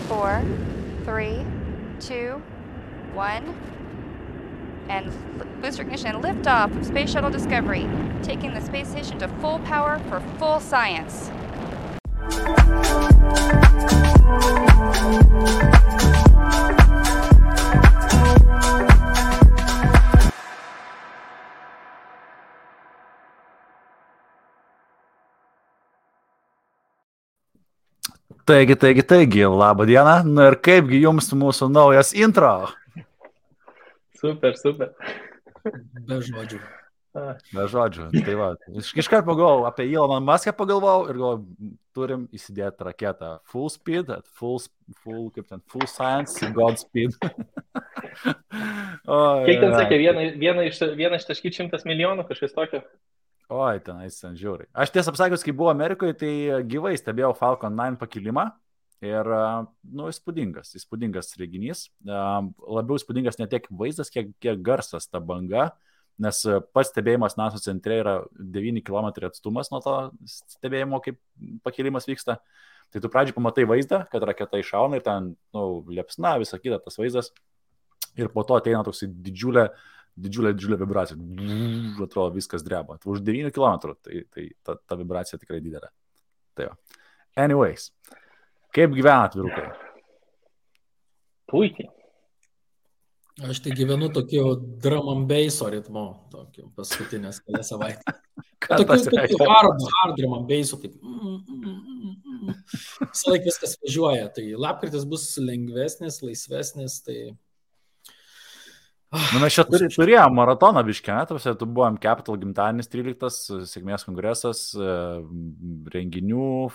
4, 3, 2, 1. And booster ignition and liftoff of Space Shuttle Discovery, taking the space station to full power for full science. Taigi, labą dieną. Na ir kaipgi jums mūsų naujas intro? Super. Be žodžių. Tai va, iškart pagalvojau apie Eloną Muską pagalvojau ir galvojau, turim įsidėti raketą full speed, full science, Godspeed. Kiek ten sakė, vieną ištaškyti 100 milijonų, kažkas tokio? Oi, tenais žiūri. Aš tiesą pasakius, kai buvau Amerikoje, tai gyvai stebėjau Falcon 9 pakilimą ir, įspūdingas reginys. Labiau įspūdingas ne tiek vaizdas, kiek garsas ta banga, nes pats stebėjimas NASA centre yra 9 km atstumas nuo to stebėjimo, kaip pakilimas vyksta. Tai tu pradžiai pamatai vaizdą, kad raketa iššauna ir ten, liepsna, visa kita tas vaizdas. Ir po to ateina toks didžiulė vibracija. Atrodo, viskas dreba. Už 9 km, tai ta vibracija tikrai didelė. Tai jo. Anyways, kaip gyvenat, vyrukai? Puikiai. Aš tai gyvenu tokiu drum and basso ritmu, tokiu paskutinės kelias savaitę. Tokiu hard drum and basso, taip. Visą laiką viskas važiuoja. Tai lapkritis bus lengvesnis, laisvesnis, tai... Mes čia turėjom maratoną biškę, tu buvom Capital gimtadienis 13, sėkmės kongresas, renginių,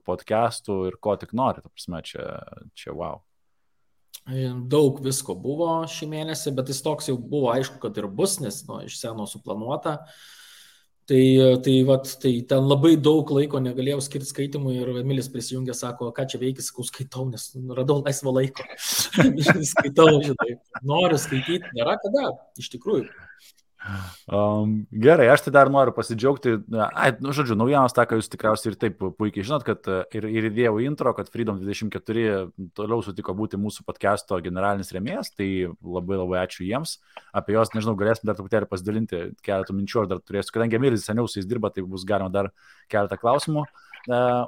podcastų ir ko tik nori, ta prasme, čia wow. Daug visko buvo šį mėnesį, bet jis toks jau buvo aišku, kad ir bus, nes iš seno suplanuota. Tai ten labai daug laiko negalėjau skirti skaitimui ir Emilis prisijungė, sako, ką čia veikis, sakau, skaitau, nes radau laisvo laiko. Skaitau, žinai, noriu skaityti, nėra kada, iš tikrųjų. Gerai, aš tai dar noriu pasidžiaugti. Naujienos tą, ką jūs tikriausiai ir taip puikiai žinot, kad ir įdėjau intro, kad Freedom 24 toliau sutiko būti mūsų podcast'o generalinis rėmėjas, tai labai ačiū jiems. Apie jos, nežinau, galėsim dar truputėlį pasidalinti keletą minčių, ar dar turėsiu, kadangi Emilis seniau su jais dirba, tai bus galima dar keletą klausimų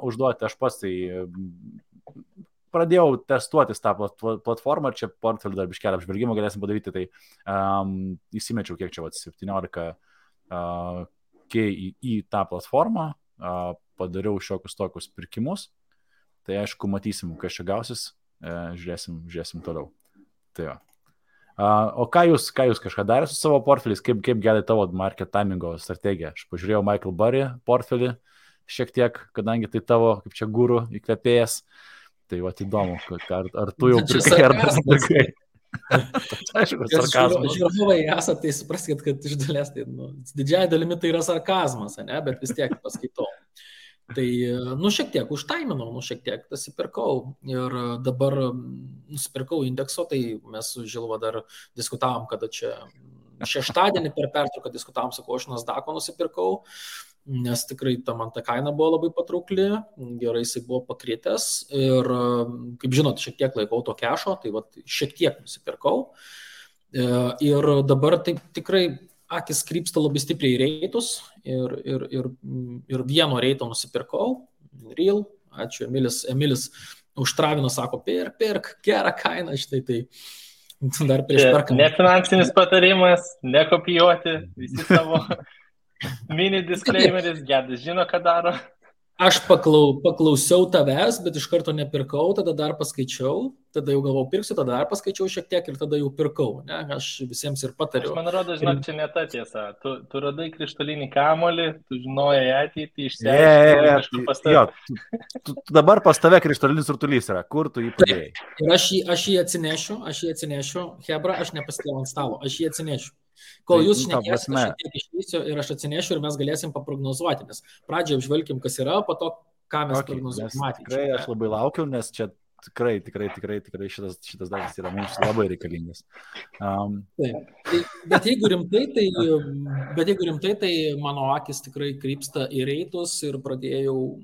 užduoti. Aš pats tai pradėjau testuotis tą platformą, čia portfelį dar biškelį apžvelgimą galėsim padaryti, tai įsimečiau kiek čia 17 į tą platformą, padariau šiokius tokius pirkimus, tai aišku matysim, kas čia gausis, žiūrėsim toliau. Tai jo. O ką jūs kažką darė su savo portfeliais, kaip gali tavo market timingo strategija? Aš pažiūrėjau Michael Burry portfelį šiek tiek, kadangi tai tavo, kaip čia guru, įkvėpėjas. Tai va, įdomu, ar tu jau pirkai, ar dar pirkai. Aišku, sarkazmas. Žiūrovai esate, tai supraskite, kad iš dalies, tai, didžiai dalimi tai yra sarkazmas, ne? Bet vis tiek paskaitau. Tai, šiek tiek užtaiminau, šiek tiek nusipirkau. Ir dabar nusipirkau indekso, tai mes su Žilva dar diskutavom, kada čia šeštadienį per pertrauką diskutavom, sakau, aš Nasdaq'o nusipirkau. Nes tikrai man ta kaina buvo labai patraukli, gerai jisai buvo pakritęs ir, kaip žinot, šiek tiek laikau to kešo, tai šiek tiek nusipirkau. Ir dabar taip tikrai akis krypsta labai stipriai į reitus ir vieno reito nusipirkau, Real, ačiū Emilis užtravino, sako, pirk, gerą kainą, štai tai. Dar prieš perkant. Ne finansinis patarimas, nekopijuoti, visi savo... Mini disclaimeris, Gedas žino, ką daro. Aš paklausiau tavęs, bet iš karto nepirkau, tada dar paskaičiau, tada jau galvau pirksiu, tada dar paskaičiau šiek tiek ir tada jau pirkau. Ne? Aš visiems ir patariu. Man rodo, žinok, čia ne ta tiesa. Tu radai krištolinį kamuolį, tu žinojai ateitį, išsiaiškinai. Tu dabar pas tave krištolinis rutulys yra, kur tu jį padėjai? Ir aš jį atsinešiu, Hebra, aš nepasitėjau ant stalo, aš jį atsinešiu. Kol jūs šnekėsite, aš šiek tiek išvysiu ir aš atsinešiu ir mes galėsim paprognozuoti, nes pradžioje apžvelkim, kas yra, po to, ką mes prognozuojame. Tikrai aš labai laukiu, nes čia tikrai šitas dalykas yra mums labai reikalingas. Bet jeigu rimtai, tai mano akis tikrai krypsta į reitus ir pradėjau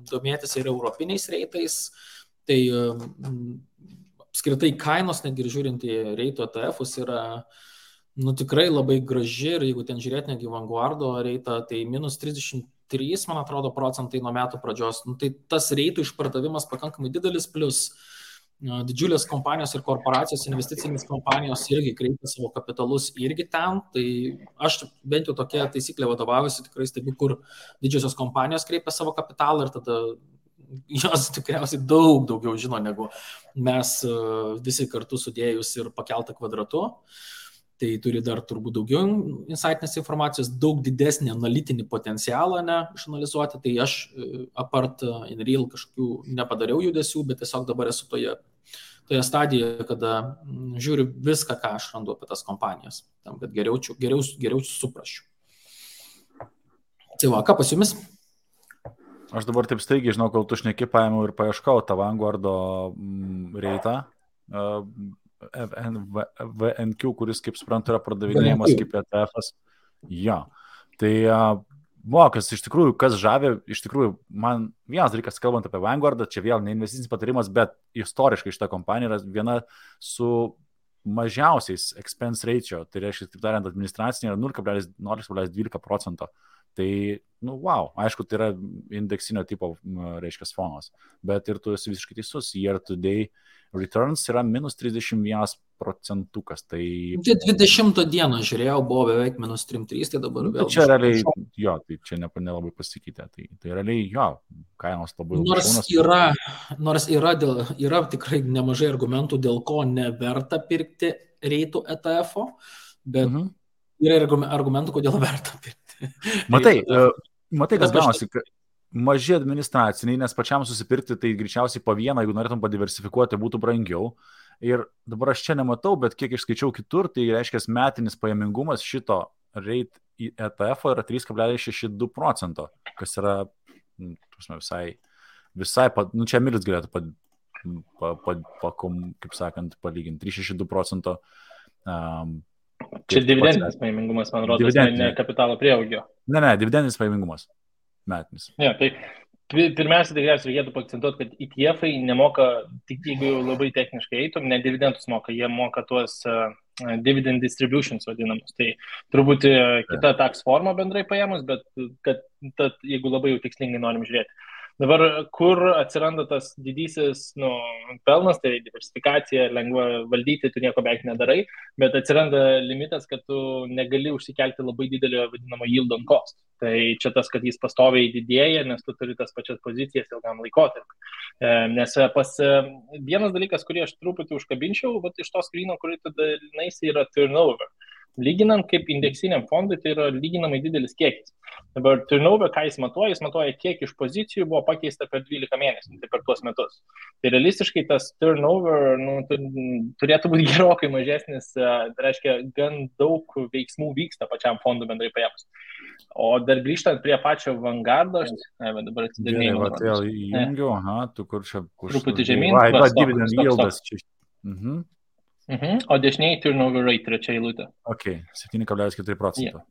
domėtis ir europiniais reitais. Tai apskritai kainos, netgi ir žiūrint į reito ETF-us, yra tikrai labai graži ir jeigu ten žiūrėt negi Vanguardo reitą, tai minus 33, man atrodo, procentai nuo metų pradžios. Tai tas reitų išpardavimas pakankamai didelis, plus didžiulės kompanijos ir korporacijos, investicinės kompanijos irgi kreipia savo kapitalus irgi ten. Tai aš bent jau tokia taisyklė vadovaujuosi, tikrai stebiu, kur didžiosios kompanijos kreipia savo kapitalą ir tada jos tikriausiai daug daugiau žino negu mes visi kartu sudėjus ir pakeltą kvadratu. Tai turi dar turbūt daugiau insightinės informacijos, daug didesnį analitinį potencialą išanalizuoti. Tai aš apart InReal kažkokių nepadariau judesių, bet tiesiog dabar esu toje stadijoje, kada žiūriu viską, ką aš randu apie tas kompanijas, tam, kad geriau suprasčiau. Tai va, ką pas jumis? Aš dabar taip staigiai, žinau, kol tu šneki, paėmiau ir paieškau tą Vanguardo reitą. VNQ, kuris, kaip suprantu, yra pardavinėjimas kaip ETF-as. Jo. Tai mokas, iš tikrųjų, kas žavė, iš tikrųjų, man vienas dalykas, kalbant apie Vanguardą, čia vėl ne investicinis patarimas, bet istoriškai šita kompanija yra viena su mažiausiais expense ratio, tai reiškia, taip tariant, administracinė yra 0,12%. Tai, wow, aišku, tai yra indeksinio tipo, reiškia, fonas, bet ir tu esi visiškai teisus, year to day returns yra minus 31%. Tai 20 dieną žiūrėjau, buvo beveik minus 3,3, tai dabar vėl. Čia realiai, jo, tai čia nelabai pasikeitė. Tai realiai, jo, kainos labai Nors yra tikrai nemažai argumentų, dėl ko neverta pirkti reitų ETF-o, bet yra argumentų, kodėl verta pirkti. Matai, kas gaunasi, maži administraciniai, nes pačiam susipirkti tai greičiausiai po vieną, jeigu norėtum padiversifikuoti, būtų brangiau. Ir dabar aš čia nematau, bet kiek išskaičiau kitur, tai reiškia metinis pajamingumas šito reit ETF yra 3,62%, kas yra visai čia Milis galėtų kaip sakant, palyginti 3,62%. Čia dividendinis pajamingumas, man rodos, ne kapitalo prieaugio. Ne, dividendinis pajamingumas metinis. Ja, tai pirmiausia, tikriausiai reikėtų paakcentuoti, kad ETF-ai nemoka, tik jeigu labai techniškai eitum, ne dividendus moka, jie moka tuos dividend distributions vadinamus. Tai turbūt kita tax forma bendrai paėmus, bet kad jeigu labai jau tikslingai norim žiūrėti. Dabar, kur atsiranda tas didysis pelnas, tai diversifikacija, lengva valdyti, tu nieko beveik nedarai, bet atsiranda limitas, kad tu negali užsikelti labai didelio vadinamo yield on cost. Tai čia tas, kad jis pastoviai didėja, nes tu turi tas pačias pozicijas ilgam laikotarpiu. Nes vienas dalykas, kurį aš truputį užkabinčiau, iš to skryno, kurį tu dalinaisi, yra turnover. Lyginant kaip indeksiniam fondui, tai yra lyginamai didelis kiekis. Dabar turnover, ką jis matuoja, kiek iš pozicijų buvo pakeista per 12 mėnesių, tai per tuos metus. Tai realistiškai tas turnover turėtų būti gerokai mažesnis, tai reiškia, gan daug veiksmų vyksta pačiam fondui bendrai paėmus. O dar grįžtant prie pačio Vanguardo, dabar atsidarinėjau. Vėl įjungiu, tu kur čia... Truputį žemyn. Dividend yieldas čia. O dešiniai turnover rate, trečia eilutė. Ok, 7,4%. Yeah.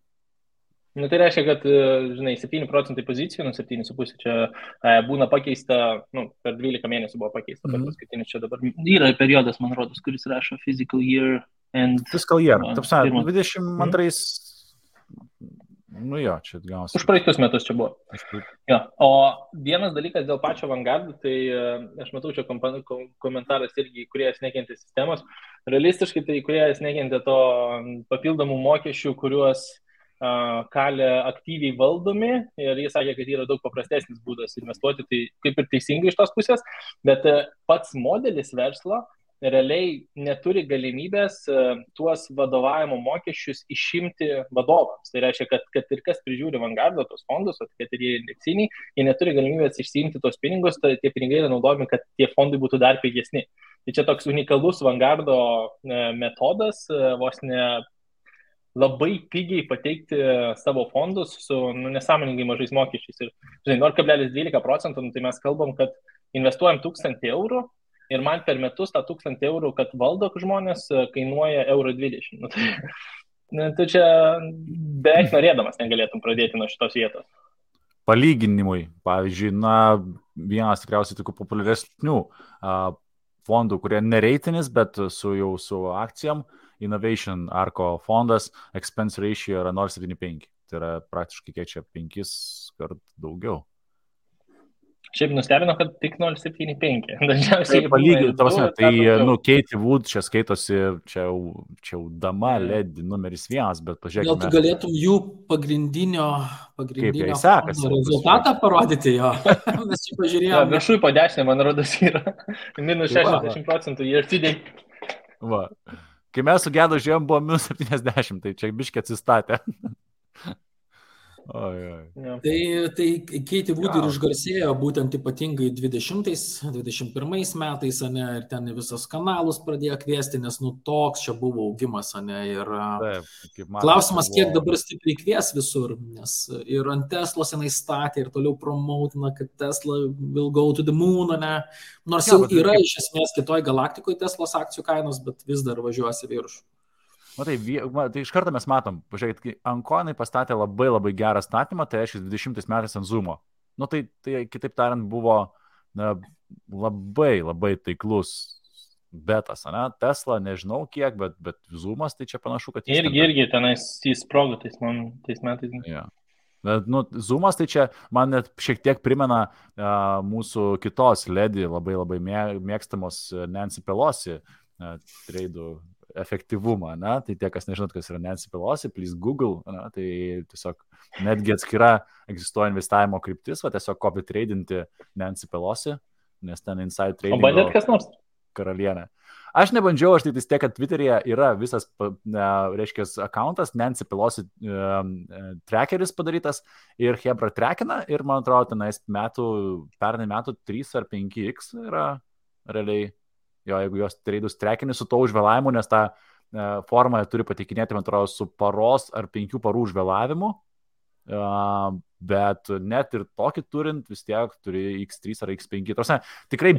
Tai reiškia, kad, 7% pozicijų, 7,5 čia būna pakeista, per 12 mėnesių buvo pakeista, per paskutinis čia dabar yra periodas, man rodos, kuris rašo fiscal year and... Fiscal year, tapsa, 22... čia gausi. Už praeitus metus čia buvo. Ja. O vienas dalykas dėl pačio Vanguardo, tai aš matau čia komentaras irgi, kurie nekentė sistemos. Realistiškai tai, kurie nekentė to papildomų mokesčių, kuriuos kalė aktyviai valdomi, ir jis sakė, kad yra daug paprastesnis būdas investuoti, tai kaip ir teisingai iš tos pusės, bet pats modelis verslo realiai neturi galimybės tuos vadovavimo mokesčius išimti vadovams. Tai reiškia, kad ir kas prižiūri Vanguardo tos fondus, kad ir jie indeksiniai, jie neturi galimybės išsiimti tos pinigus, tai tie pinigai yra naudojami, kad tie fondai būtų dar pigesni. Tai čia toks unikalus Vanguardo metodas, vos ne labai pigiai pateikti savo fondus su nesąmoningai mažais mokesčiais. Ir 0,12%, tai mes kalbam, kad investuojam 1,000 eurų, ir man per metus tą 1,000 eurų, kad valdo žmonės, kainuoja 1,20 €. Tai čia beveik norėdamas negalėtum pradėti nuo šitos vietos. Palyginimui, pavyzdžiui, vienas tikriausiai tokių populiaresnių fondų, kurie nereitinis, bet su akcijom. Innovation Arco fondas, expense ratio yra 0,75. Tai yra praktiškai kiek čia 5 kart daugiau. Šiaip nustebino, kad tik 0,75. Dažniausiai Katie Wood čia skaitosi, čia jau dama LED numeris 1, bet pažiūrėkime. Gal tu galėtum jų pagrindinio rezultatą parodyti jo? Mes čia pažiūrėjome. Viršui po 10, man rodos, yra minus 60% year to date. Va. Kai mes su Gedu žiūrėjom, buvo minus 70, tai čia biškiai atsistatė. Tai Katie Wood ir išgarsėjo būtent ypatingai 20-21 metais, ane, ir ten visos kanalus pradėjo kviesti, nes toks čia buvo augimas, ane, ir klausimas, kiek dabar stipriai kvies visur, nes ir ant Teslos jinai statė ir toliau promotina, kad Tesla will go to the moon, ane, nors jau yra iš esmės kitoj galaktikoje Teslos akcijų kainos, bet vis dar važiuosi viršų. Tai iš karto mes matom, pažiūrėkit, kai Ankonai pastatė labai labai gerą statymą, tai reiškia 20 metais ant Zoomo. Tai kitaip tariant buvo labai labai taiklus betas, ne? Tesla nežinau kiek, bet Zoomas tai čia panašu, kad jis... Irgi tenais įsprogo tais metais. Ja. Bet, Zoomas tai čia man net šiek tiek primena mūsų kitos ledi labai labai mėgstamos Nancy Pelosi treidų efektyvumą, ne? Tai tie, kas nežinot, kas yra Nancy Pelosi, please Google, ne? Tai tiesiog netgi atskira egzistuoja investavimo kryptis, tiesiog copy tradinti Nancy Pelosi, nes ten inside trading. O bandėt kas nors? Karalienė. Aš nebandžiau, aš tai tiek, kad Twitter'yje yra visas, reiškia, accountas, Nancy Pelosi trackeris padarytas ir Hebra trackina ir, man atrodo, tenais pernai metų 3 ar 5x yra realiai. Jo, jeigu jos treidus trekini su to užvėlavimu, nes tą formą turi pateikinėti, man atrodo, su paros ar 5 parų užvėlavimu, bet net ir tokį turint, vis tiek turi X3 ar X5. Tikrai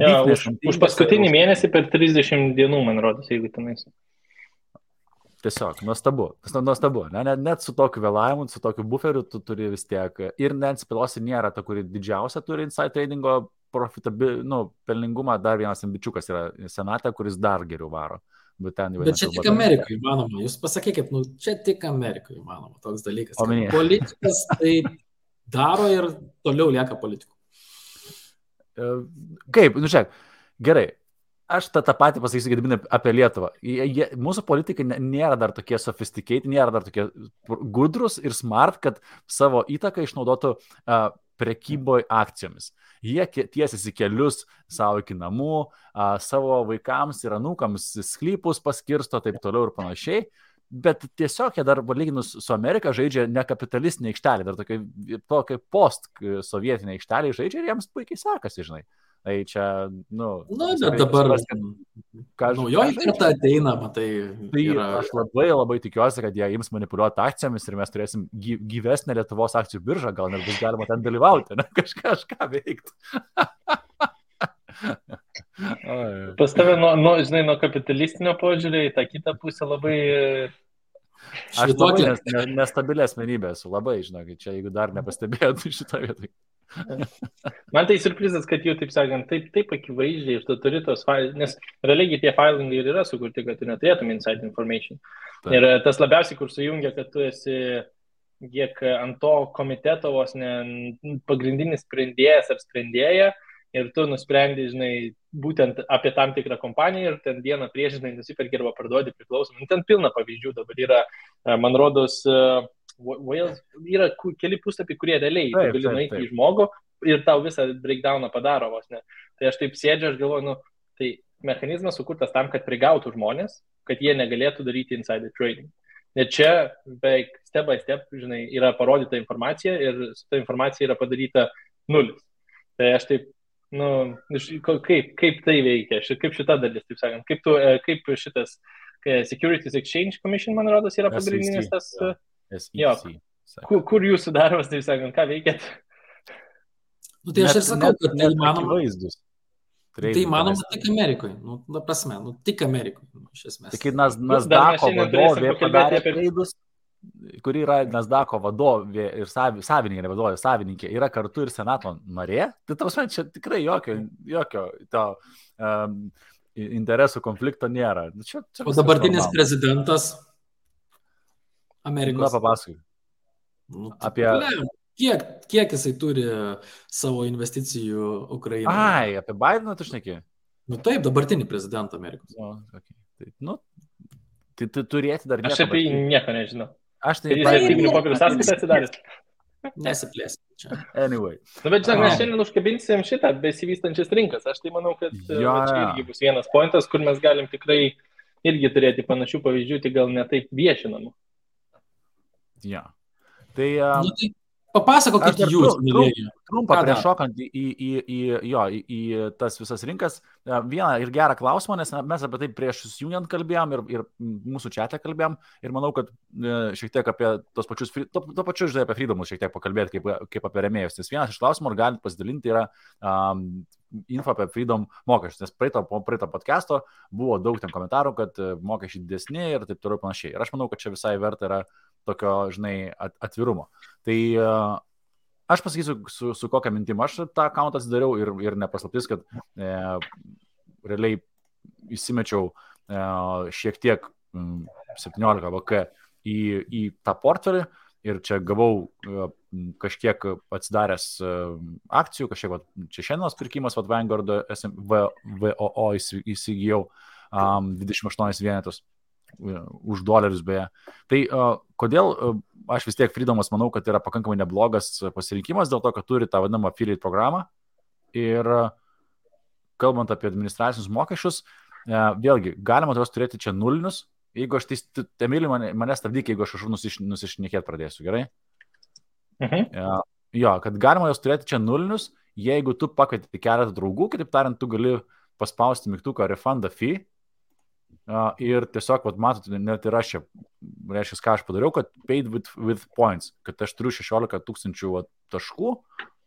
už paskutinį mėnesį per 30 dienų, man rodos, jeigu tenais. Tiesiog, nuostabu. Net su tokiu vėlavimu, su tokiu buferiu tu turi vis tiek. Ir Nancy Pelosi nėra ta, kuri didžiausia turi inside tradingo pelningumą, dar vienas ambičiukas yra senate, kuris dar geriau varo. Bet čia tik Amerikai įmanoma. Jūs pasakykit, čia tik Amerikai įmanoma toks dalykas. Politikas tai daro ir toliau lieka politikų. Kaip? Žiūrėk, gerai. Aš tą patį pasakysiu, Gediminai, apie Lietuvą. Mūsų politikai nėra dar tokie sophisticated, nėra dar tokie gudrus ir smart, kad savo įtaką išnaudotų prekyboj akcijomis. Jie tiesiasi kelius savo iki namų, savo vaikams ir anūkams sklypus paskirsto, taip toliau ir panašiai. Bet tiesiog jie dar, lyginus su Amerika, žaidžia ne kapitalistinė aikštelė, dar tokia post-sovietinė aikštelė žaidžia ir jiems puikiai sekasi, žinai. Tai čia, bet dabar naujoji karta ateina, matai. Aš labai labai tikiuosi, kad jie ims manipuliuoti akcijomis ir mes turėsim gyvesnę Lietuvos akcijų biržą, gal net bus galima ten dalyvauti, ne? Kažką veikti. Pas tave, nuo kapitalistinio požiūrio į tą kitą pusę labai... Aš labai nestabilė asmenybė esu, labai, žinokit, čia jeigu dar nepastebėjot šitą vietą. Man tai surprizas, kad jau, taip sakant, taip akivaizdžiai ir tu turi tos failus, nes realiai tie failingai ir yra sukurti, kad tu neturėtum inside information. Taip. Ir tas labiausiai, kur sujungia, kad tu esi kiek ant to komiteto vos ne pagrindinis sprendėjas ar sprendėja ir tu nusprendi, žinai, būtent apie tam tikrą kompaniją ir ten dieną prieš, žinai, nusiperki arba parduodi priklausomai. Ten pilna pavyzdžių dabar yra, man rodos, yra keli puslapiai, kurie realiai tu gali nueiti į žmogų ir tau visą breakdowną padaro vos ne. Tai aš taip sėdžiu, aš galvoju, tai mechanizmas sukurtas tam, kad prigautų žmonės, kad jie negalėtų daryti insider trading. Nes čia beveik step by step, žinai, yra parodyta informacija ir su ta informacija yra padaryta nulis. Tai aš taip, kaip tai veikia, kaip šita dalis, taip sakant, kaip šitas Securities Exchange Commission, man rodos, yra pagrindinis tas... Kur jūsų darbas, taip sakant, ką veikėt? Tai aš ir sakau, kad tai įmanoma. Tai įmanoma tik Amerikoje. Prasme, tik Amerikoje, iš esmės. Tai kai Nasdaqo vadovė padarė treidus, kuri yra Nasdaqo vadovė ir savininkė, ne vadovė, savininkė, yra kartu ir senato narė, tai tavas man čia tikrai jokio to interesų konflikto nėra. Čia o dabartinis prezidentas Amerikos. Na, papasakai. Nu, Apie... Kiek jisai turi savo investicijų Ukrainoje? Ai, apie Bideną tu šneki? Nu taip, dabartinį prezidentą Amerikos. O, okay. Tai turėti dar nieko. Aš apie jį nieko nežinau. Aš tai... Jis vertybinių popierių sąskaitą atsidaręs. Nesiplėsim čia. Anyway. Bet žinok, mes šiandien užkabinsim šitą besivystančias rinkas. Aš tai manau, kad čia irgi bus vienas pointas, kur mes galim tikrai irgi turėti panašių pavyzdžių, tik gal ne taip viešinamų. Ja. Tai... tai papasakokit jūs, mylėjai. Trumpą prieš šokant į tas visas rinkas, vieną ir gerą klausimą, nes mes apie tai prieš susijungiant kalbėjom ir mūsų čiate kalbėjom ir manau, kad šiek tiek apie tos pačius, to pačiu, žinai, apie freedomus šiek tiek pakalbėti kaip apie rėmėjus. Nes vienas iš klausimų, ar galite pasidalinti, yra info apie freedom mokesčius, nes praeito podcast'o buvo daug ten komentarų, kad mokesčiai didesni ir taip toliau panašiai. Ir aš manau, kad čia visai verta yra tokio, žinai, atvirumo. Tai aš pasakysiu, su kokią mintim aš tą accountą atsidariau ir nepaslaptis, kad realiai įsimečiau šiek tiek 17 VK į tą portfelį ir čia gavau kažkiek atsidaręs akcijų, kažkiek čia šiandienos pirkimas, Vanguard VOO įsigijau 28 vienetus. Už dolerius beje. Tai kodėl aš vis tiek Freedomas manau, kad yra pakankamai neblogas pasirinkimas dėl to, kad turi tą vadinamą affiliate programą ir kalbant apie administracinius mokesčius, vėlgi, galima juos turėti čia nulinius, jeigu aš Emilį mane stabdyk, jeigu aš nusišnekėt pradėsiu, gerai? Jo, kad galima juos turėti čia nulinius, jeigu tu pakvieti keletą draugų, kitaip tariant, tu gali paspausti mygtuką refund a fee. Ir tiesiog, matot, net ir aš čia, reiškia, ką aš padariau, kad paid with points, kad aš turiu 16 000 taškų,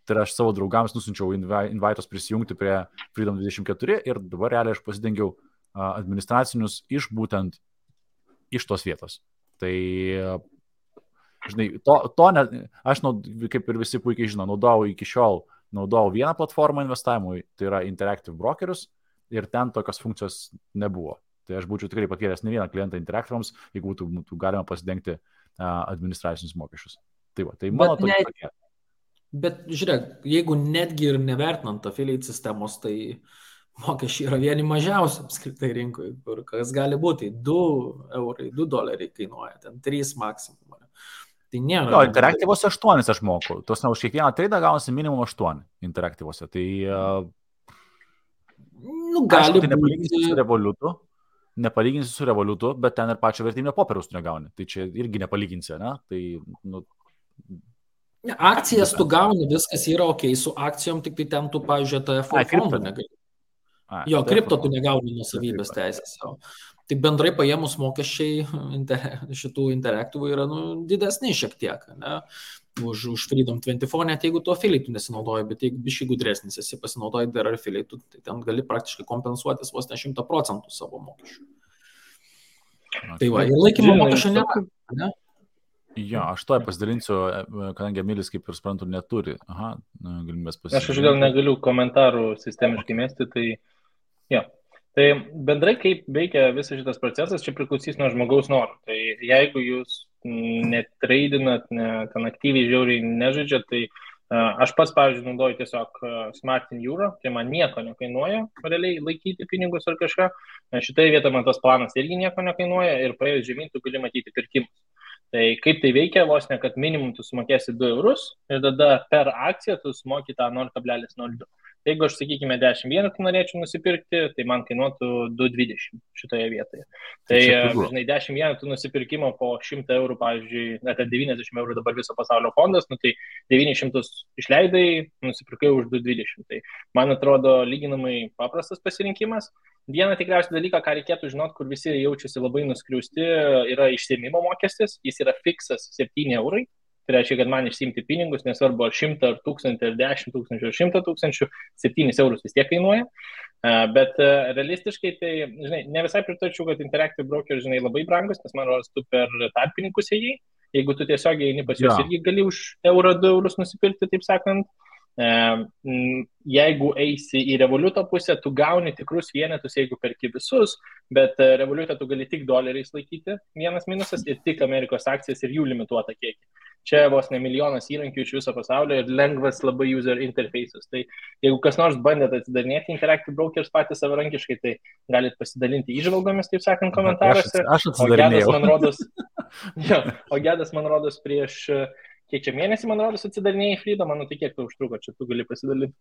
tai aš savo draugams nusinčiau invaitos prisijungti prie Freedom 24 ir dabar realiai aš pasidengiau administracinius būtent iš tos vietos. Tai, žinai, aš, kaip ir visi puikiai žino, naudojau vieną platformą investavimui, tai yra Interactive Brokerius ir ten tokios funkcijos nebuvo. Tai aš būčiau tikrai pakėlęs ne vieną klientą Interactive'ams, jeigu būtų galima pasidengti administracinius mokesčius. Tai va, tai mano tokia tokia. Bet žiūrėk, jeigu netgi ir nevertinant affiliate sistemos, tai mokesčiai yra vieni mažiausi apskritai rinkoje, kur kas gali būti 2 eurai, 2 doleriai kainuoja, ten 3 maksimum. Tai nėra. Jo, Interactive'ose 8 aš moku. Tos už kiekvieną traidą gaunasi minimum 8 Interactive'ose. Tai gali būti. Nepalyginsi su Revolutu, bet ten ir pačio vertybinio popieriaus tu negauni. Tai čia irgi nepalyginsi, ne? Tai, akcijas tu gauni, viskas yra ok, su akcijom tik tai ten tu, pavyzdžiui, TFO fondų negali. Jo, kripto tu negauni nuosavybės teisės. Tai bendrai paėmus mokesčiai šitų interaktyvų yra didesni šiek tiek, ne? Už Freedom 24, net jeigu tu affiliate nesinaudoji, bet jeigu biškai gudresnis esi pasinaudoji dar affiliate, tai ten gali praktiškai kompensuotis vos ne 100% savo mokesčių. Tai va, ir laikymo mokesčio nėra, ne? Jo, aš to pasidalinsiu, kadangi Emilis, kaip ir suprantu, neturi. Aha, galimybės pasidalinti. Aš gal negaliu komentarų sistemiškai mesti, tai jo. Tai bendrai, kaip veikia visas šitas procesas, čia priklausys nuo žmogaus norų. Tai jeigu jūs netradinat, ten aktyviai žiauriai nežaidžiat, tai aš pats, pavyzdžiui, naudoju tiesiog Smart in Euro, tai man nieko nekainuoja realiai laikyti pinigus ar kažką. Šitoje vietoje man tas planas irgi nieko nekainuoja ir praėjus žemyn tu gali matyti pirkimus. Tai kaip tai veikia, vos ne, kad minimum tu sumokėsi 2 eurus ir tada per akciją tu sumoki tą 0,02. Jeigu aš, sakykime, 10 vienetų norėčiau nusipirkti, tai man kainuotų 2,20 šitoje vietoje. Tai, žinai, 10 vienetų nusipirkimo po 100 eurų, pavyzdžiui, net 90 eurų dabar viso pasaulio fondas, tai 900 išleidai, nusipirkai už 2,20. Tai man atrodo lyginamai paprastas pasirinkimas. Vieną tikriausiai dalyką, ką reikėtų žinoti, kur visi jaučiasi labai nuskriausti, yra išsiėmimo mokestis. Jis yra fiksas 7 eurai. Tai reiškia, kad man išsiimti pinigus, nesvarbu ar 100, ar 1000, ar 10 000, ar 100 000, 7 eurus vis tiek kainuoja. Bet realistiškai, tai, žinai, ne visai pritarčiau, kad Interactive Broker, žinai, labai brangus, nes man rodos, tu per tarpininkus ėjai. jeigu tu tiesiog eini pas juos, Jo. irgi gali už eurą, 2 eurus nusipirkti, taip sakant. Jeigu eisi į Revoluto pusę, tu gauni tikrus vienetus, jeigu perki visus, bet Revolutą tu gali tik doleriais laikyti, vienas minusas, ir tik Amerikos akcijas ir jų limituotą kiekį. Čia vos ne milijonas įrankių iš viso pasaulio ir lengvas labai user interface'as. Tai jeigu kas nors bandėt atsidarinėti Interactive Brokers patys savarankiškai, tai galit pasidalinti įžvalgomis, taip sakant, komentaruose. Aš atsidarinėjau. O Gedas, man rodos, prieš kiek čia mėnesį, man rodos, atsidarinėjai Freedom, man tai kiek tai užtruko, čia tu gali pasidalinti.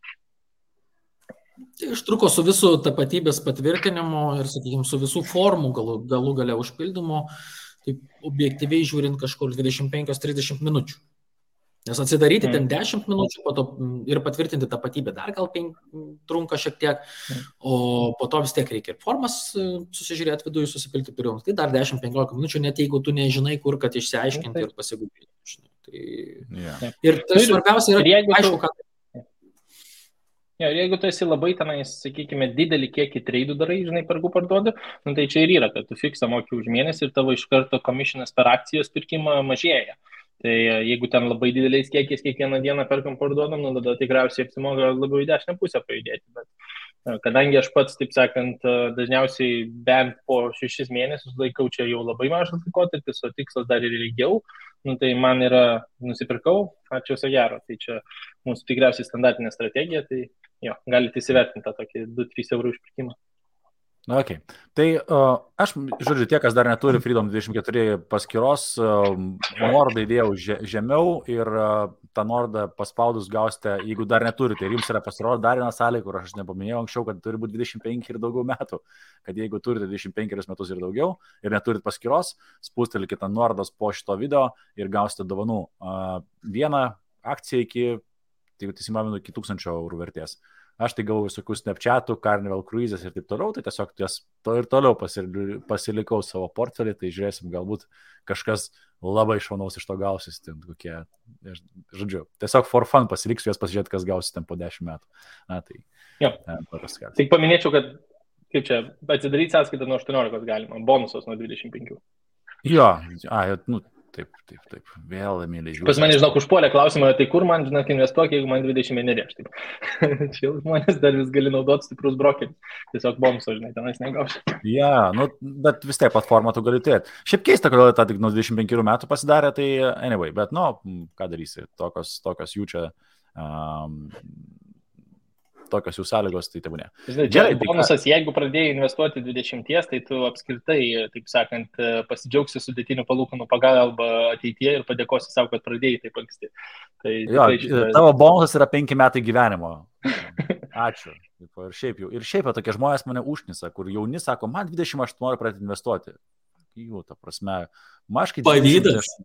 Tai užtruko su visų tapatybės patvirtinimu ir, sakykime, su visų formų galų gale užpildymu, taip objektyviai žiūrint kažkur 25-30 minučių. Nes atsidaryti ten 10 minučių, po to ir patvirtinti tapatybę dar gal trunka šiek tiek, o po to vis tiek reikia ir formas susižiūrėti viduje, susipilti pirmiausia. Tai dar 10-15 minučių, net jeigu tu nežinai, kur, kad išsiaiškinti ir pasigūpinti. Tai... Ir tai svarbiausia yra, aišku, kad... Ja, ir jeigu tu esi labai tenais, sakykime, didelį kiekį treidų darai, žinai, pergu parduodu, tai čia ir yra, kad tu fiksą moki už mėnesį ir tavo iš karto komisionas per akcijos pirkimą mažėja. Tai jeigu ten labai dideliais kiekiais kiekvieną dieną perkam parduodam, tada tikriausiai apsimoga labiau į dešinę pusę pajudėti. Bet kadangi aš pats, taip sakant, dažniausiai bent po 6 mėnesius laikau čia jau labai mažas laikotarpis, o tikslas dar ir ilgiau, tai man yra nusipirkau, ačiū viso gero. Tai čia mūsų tikriausiai standartinė strategija, tai jo, galite įsivertinti tą tokį 2-3 eurų išpirkimą. Okay. Tai aš, žodžiu, tie, kas dar neturi Freedom 24 paskyros, nuorodą įdėjau žemiau ir tą nuorodą paspaudus gausite, jeigu dar neturite, ir jums yra pasirodo dar viena sąlyga, kur aš nepaminėjau anksčiau, kad turi būti 25 ir daugiau metų, kad jeigu turite 25 metus ir daugiau ir neturite paskyros, spustelkite nuorodas po šito video ir gausite dovanų. Vieną akciją iki 1000 eurų vertės. Aš tai gavau visokių Snapchatų, Carnival Cruises ir taip toliau, tai tiesiog ir toliau pasilikau savo portfelį, tai žiūrėsim, galbūt kažkas labai šaunaus iš to gausis, ten kokie, žodžiu, tiesiog for fun pasiliksiu juos pasižiūrėti, kas gausis ten po 10 metų. Na, tai... Tik paminėčiau, kad, kaip čia, atsidaryti sąskaitą nuo 18 galima, bonusas nuo 25. Jo, taip, vėl, myliai žiūrėjau. Pas mane, žinok, užpuolė klausimą, tai kur man, žinok, investuok, jeigu man 21 aš taip. Čia žmonės dar vis gali naudoti stiprus brokeris. Tiesiog bonuso, žinai, tenais negauši. Ja, bet vis tiek platformą tu gali turėti. Šiaip keista, kodėl tą tik nuo 25 metų pasidarė, tai anyway, bet, ką darysi, tokios jų čia... tokios jų sąlygos, tai tebūnė. Žinai, bonusas, jeigu pradėjai investuoti 20, tai tu apskritai, taip sakant, pasidžiaugsi sudėtinių palūkanų pagalba ateityje ir padėkosi savo, kad pradėjai taip anksti. Tai, tavo bonusas yra 5 metai gyvenimo. Ačiū. Ir šiaip tokie žmonės mane užknisa, kur jauni sako, man 20 aš noriu pradėti investuoti. Jų, ta prasme, maškai... Pavydas.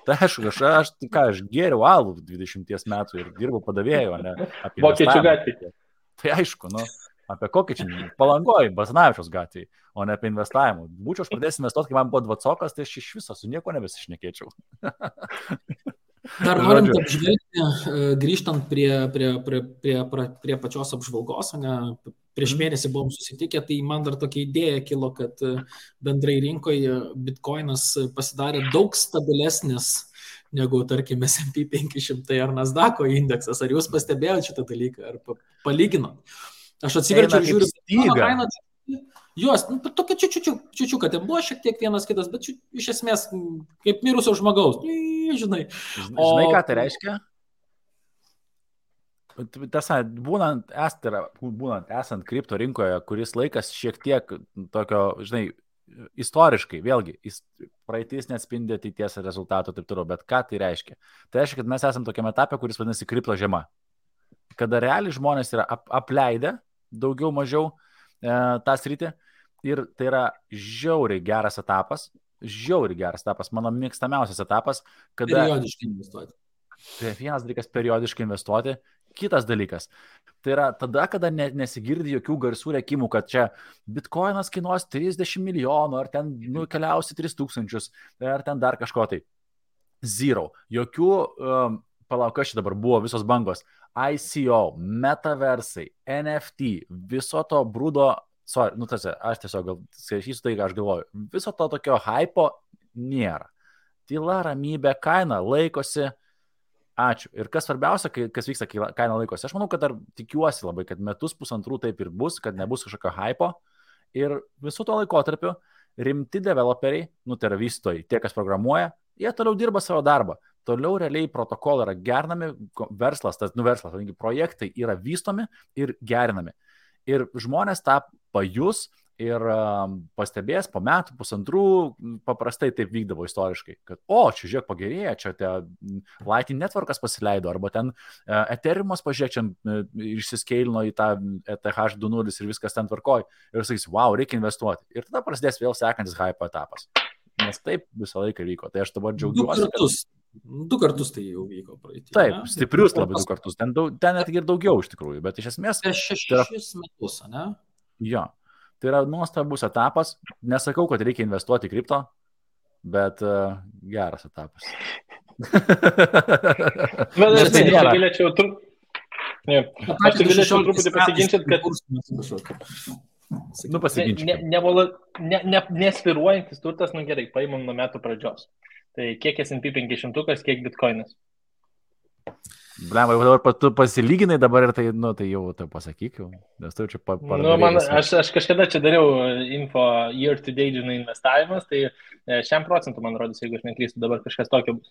Tai aš geriau alų 20 metų ir dirbau padavėjų, ne? Vokiečių gatvėje. Tai aišku, apie kokį čia Palangoj, Basanavičiaus gatvėje, o ne apie investavimą. Būčiau aš pradėjęs investuoti, kai man buvo 20, tai aš iš viso su nieko nebesišnekėčiau. Dar norint apžvelgti, grįžtant prie pačios apžvalgos, ne, prieš mėnesį buvom susitikę, tai man dar tokia idėja kilo, kad bendrai rinkoje Bitcoinas pasidarė daug stabilesnis negu, tarkim, S&P 500 ar Nasdaq'o indeksas. Ar jūs pastebėjote šitą dalyką, ar palyginot? Aš atsiverčiau ir žiūriu, jos, tokia čiučiu, kad ten buvo šiek tiek vienas kitas, bet iš esmės kaip mirusio žmogaus, žinai. Žinai, ką tai reiškia? Tiesa, būnant esant kripto rinkoje, kuris laikas šiek tiek tokio, žinai, istoriškai, vėlgi, praeitis neatspindi ateities rezultatų taip toliau, bet ką tai reiškia? Tai reiškia, kad mes esame tokiame etape, kuris vadinasi kripto žiema. Kada realiai žmonės yra apleidę daugiau mažiau tą sritį ir tai yra žiauriai geras etapas, mano mėgstamiausias etapas, kada... Periodiškai investuoti. Tai vienas dalykas periodiškai investuoti, kitas dalykas. Tai yra tada, kada nesigirdi jokių garsų rėkimų, kad čia Bitcoinas kainuos 30 milijonų, ar ten keliausi 3000, ar ten dar kažko tai. Zero. Jokių, kas čia dabar buvo, visos bangos. ICO, metaversai, NFT, viso to brūdo, aš tiesiog skaitysiu tai, ką aš galvoju, viso to tokio hypo nėra. tyla, ramybė, kaina laikosi. Ačiū. Ir kas svarbiausia, kas vyksta, kai kaina laikosi. Aš manau, kad dar tikiuosi labai, kad metus pusantrų taip ir bus, kad nebus kažkokio hypo. Ir visų to laikotarpiu rimti developeriai, tai yra vystytojai, tie, kas programuoja, jie toliau dirba savo darbą. Toliau realiai protokolai yra gerinami, verslas, projektai yra vystomi ir gerinami. Ir žmonės tą pajus ir pastebės po metų, pusantrų, paprastai taip vykdavo istoriškai, kad, čia žiūrėk pagerėja, čia Lightning Networkas pasileido, arba ten Ethereumas pažiūrėk, čia išsiskeilino į tą ETH 2.0 ir viskas ten tvarkoj. Ir sakys, wow, reikia investuoti. Ir tada prasidės vėl sekantis hype etapas. Nes taip visą laiką vyko. Tai aš dabar džiaugiuosi. Du kartus tai jau vyko praeitį. Taip, stiprius labai 2 kartus. Ten net ir daugiau iš tikrųjų, bet iš esmės... 6 metus, ne? Jo. Tai yra nuostabus etapas. Nesakau, kad reikia investuoti į kripto, bet geras etapas. Aš galėčiau truputį pasiginčyti, kad... Nesviruojantis turtas, gerai, paimam nuo metų pradžios. Tai kiek S&P 500, kiek bitkoinas? Blemba, jau dabar tu pasilyginai dabar ir tai jau tai pasakyk jau, nes tu čia aš kažkada čia dariau info year to date, investavimas, tai 100% man rodys, jeigu aš neklystu, dabar kažkas tokio bus.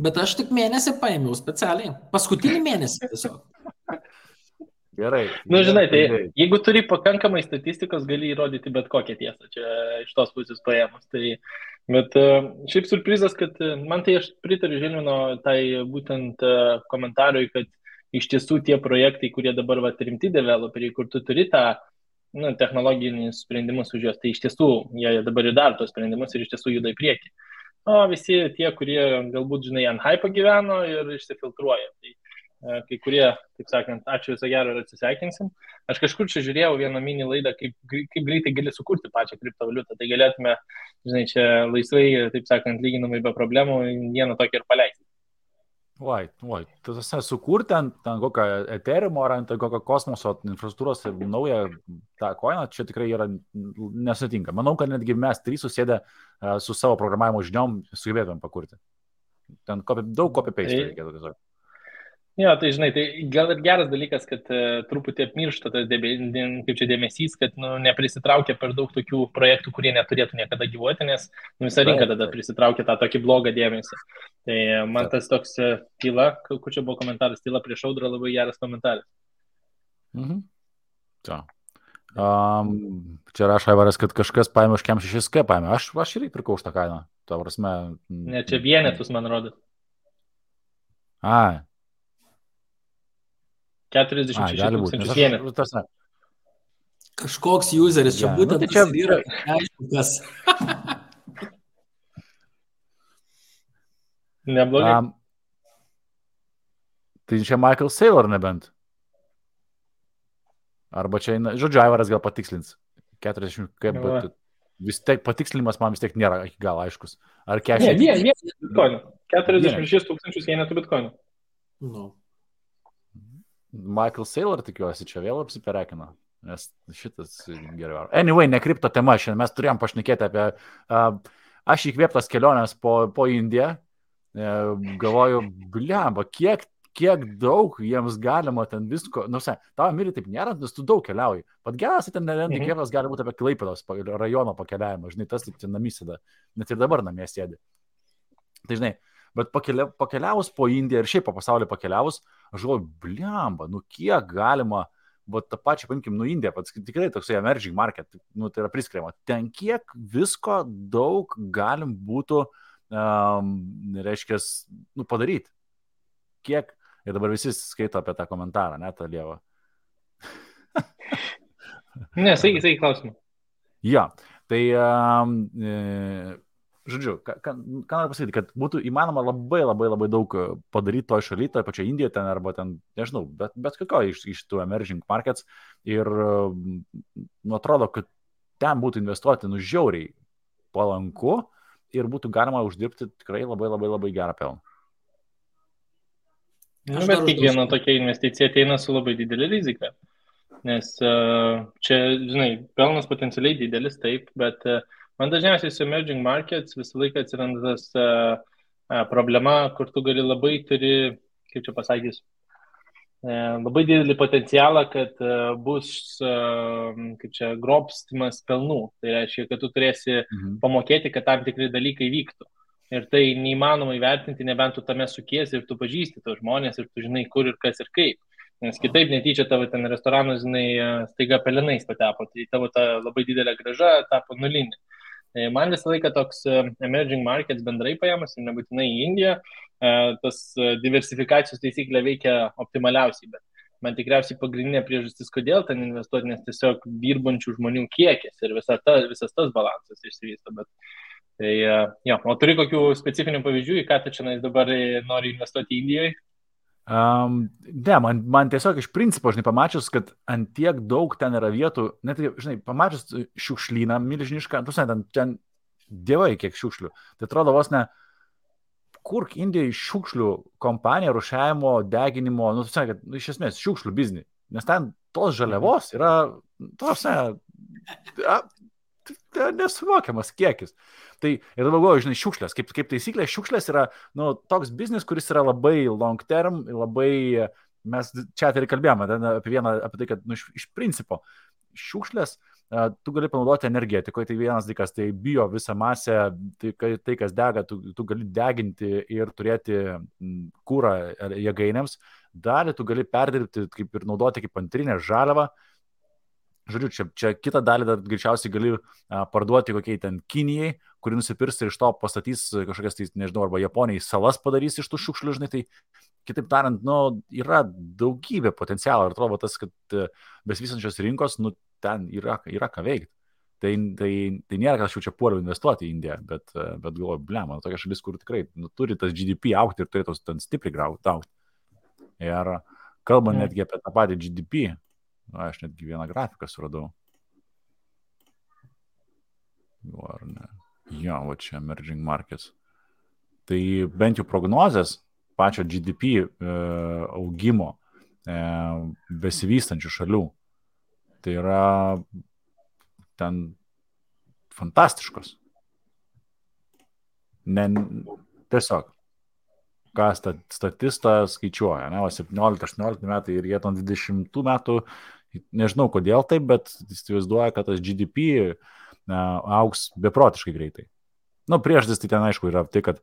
Bet aš tik mėnesį paėmiau specialiai. Paskutinį mėnesį tiesiog. Gerai. Žinai, tai jeigu turi pakankamai statistikos, gali įrodyti bet kokią tiesą, čia iš tos pusės paėmus. Bet šiaip surprizas, kad man tai aš pritariu Žilvino tai būtent komentarui, kad iš tiesų tie projektai, kurie dabar rimti developeriai, kur tu turi tą technologinius sprendimus už juos, tai iš tiesų jie dabar ir daro tos sprendimus ir iš tiesų juda į priekį. O visi tie, kurie galbūt, ant hype gyveno ir išsifiltruoja. Tai kai kurie, taip sakant, ačiū viso gero ir atsisveikinsim. Aš kažkur čia žiūrėjau vieną mini laidą, kaip greitai gali sukurti pačią kriptovaliutą. Tai galėtume, čia laisvai, taip sakant, lyginamai be problemų, vieną tokį ir paleisti. Tu sukurti ant kokio Ethereumo ar ant kokio kosmoso infrastruktūros naują tą coiną, čia tikrai yra nesutinka. Manau, kad netgi mes 3 susėdę su savo programavimo žiniom sugebėtumėm pakurti. Ten daug copy-paste reikėtų tiesiog. Jo, tai tai gal ir geras dalykas, kad truputį apmiršta tas dėmesys, kad neprisitraukia per daug tokių projektų, kurie neturėtų niekada gyvuoti, nes visa rinka tada prisitraukia tą tokį blogą dėmesį. Tai man tas toks tyla, kur čia buvo komentaras, tyla prieš audrą, labai geras komentaras. Čia rašo Aivaras, kad kažkas paėmė už kem 6K paėmė. Aš irgi pirkau už tą kainą. Ne, čia vienetus, man rodo. 46 tūkstančius vienetus. Kažkoks useris čia būtent čia yra aišku kas. Neblogai. Tai čia Michael Saylor nebent. Arba čia, žodžiu, Aivaras gal patikslins. 40, bet vis tiek patikslinimas man vis tiek nėra iki gal aiškus. Ar 40? Ne, bitkoinų. 46 tūkstančius vienetų bitkoinų. Michael Saylor, tikiuosi, čia vėl apsiperekino, nes šitas geriau. Anyway, ne kripto tema, šiandien mes turėjom pašnekėti apie, aš įkvėptas kelionės po Indiją, galvoju, blemba, kiek daug jiems galima ten visko, tavo myli taip nėra, nes tu daug keliauji. Pat geras, ten įkvėptas gali būti apie Klaipėdos rajono pakeliavimą, tas taip ten namysėda, net ir dabar namie sėdi. Tai bet pakeliavus po Indiją ir šiaip po pasaulį pakeliavus, aš galvoju, blemba, kiek galima, tą pačią, paimkim, Indiją, tikrai toksai emerging market, tai yra priskiriama, ten kiek visko daug galim būtų, reiškia, padaryti. Kiek, ir dabar visi skaito apie tą komentarą, ne, tą lievą. Ne, sakai klausimą. Ja, tai... Žodžiu, ką noriu pasakyti, kad būtų įmanoma labai daug padaryti toje šalyje, toje pačioje Indijoje ten, arba ten, nežinau, bet kokio iš tų emerging markets ir atrodo, kad ten būtų investuoti žiauriai palanku ir būtų galima uždirbti tikrai labai gerą pelną. Bet kiekviena tokia investicija ateina su labai didelė rizika, nes čia, pelnas potencialiai didelis, taip, bet Man dažniausiai su emerging markets visą laiką atsiranda tas problema, kur tu gali labai kaip čia pasakys, labai didelį potencialą, kad bus kaip čia grobstimas pelnų. Tai reiškia, kad tu turėsi pamokėti, kad tam tikri dalykai vyktų. Ir tai neįmanoma įvertinti, nebent tu tame sukiesi ir tu pažįsti tos žmonės ir tu žinai, kur ir kas ir kaip. Nes kitaip netyčia tavo ten restoranas, staiga pelenais patepo, tai tavo ta labai didelė grąža tapo nulinė. Man visą laiką toks emerging markets bendrai paėmus, ir nebūtinai į Indiją, tas diversifikacijos taisyklė veikia optimaliausiai, bet man tikriausiai pagrindinė priežastis, kodėl ten investuoti, nes tiesiog dirbančių žmonių kiekis ir visas tas balansas išsivysto. Bet, tai, o turi kokių specifinių pavyzdžių, į ką tu čia dabar nori investuoti Indijoje? Ne, man tiesiog iš principo, žinai, pamačius, kad ant tiek daug ten yra vietų, net, žinai, pamačius šiukšlyną milžinišką, ten dievai kiek šiukšlių. Tai atrodo vos ne, kurk Indijai šiukšlių kompanija, rušiavimo, deginimo, kad iš esmės šiukšlių biznį. Nes ten tos žaliavos yra, nesuvokiamas kiekis. Tai ir dabar, žinai, šiukšlės, kaip taisyklė, šiukšlės yra toks biznis, kuris yra labai long term, labai, mes čia ir kalbėjome apie tai, kad iš principo šiukšlės tu gali panaudoti energetikoje, tai vienas dalykas, tai bio visą masę, tai kas dega, tu gali deginti ir turėti kūrą jėgainėms, dalį tu gali perdirbti kaip ir naudoti kaip antrinę žaliavą. Žodžiu, čia kitą dalį dar greičiausiai gali parduoti kokiai ten Kinijai, kuri nusipirks ir iš to pastatys kažkokias, tai, nežinau, arba Japonijai salas padarys iš tų šiukšlių, žinai, tai kitaip tariant, yra daugybė potencialo ir atrodo tas, kad besivystančios rinkos, ten yra ką veikti. Tai nėra, kad aš jau čia puoliau investuoti į Indiją, bet galvoju, blema, tokia šalis, kur tikrai turi tas GDP aukti ir turėtų ten stipriai aukti. Ir kalbant netgi apie tą patį GDP, aš netgi vieną grafiką suradau. Ar ne? Jo, va čia emerging markets. Tai bent jau prognozės pačio GDP augimo besivystančių šalių. Tai yra ten fantastiškos. Tiesiog. Ką statistas skaičiuoja, ne, 17-18 metai ir jie 20 metų, nežinau kodėl taip, bet įsivaizduoja, kad tas GDP augs beprotiškai greitai. Priežastis tai ten aišku yra tai, kad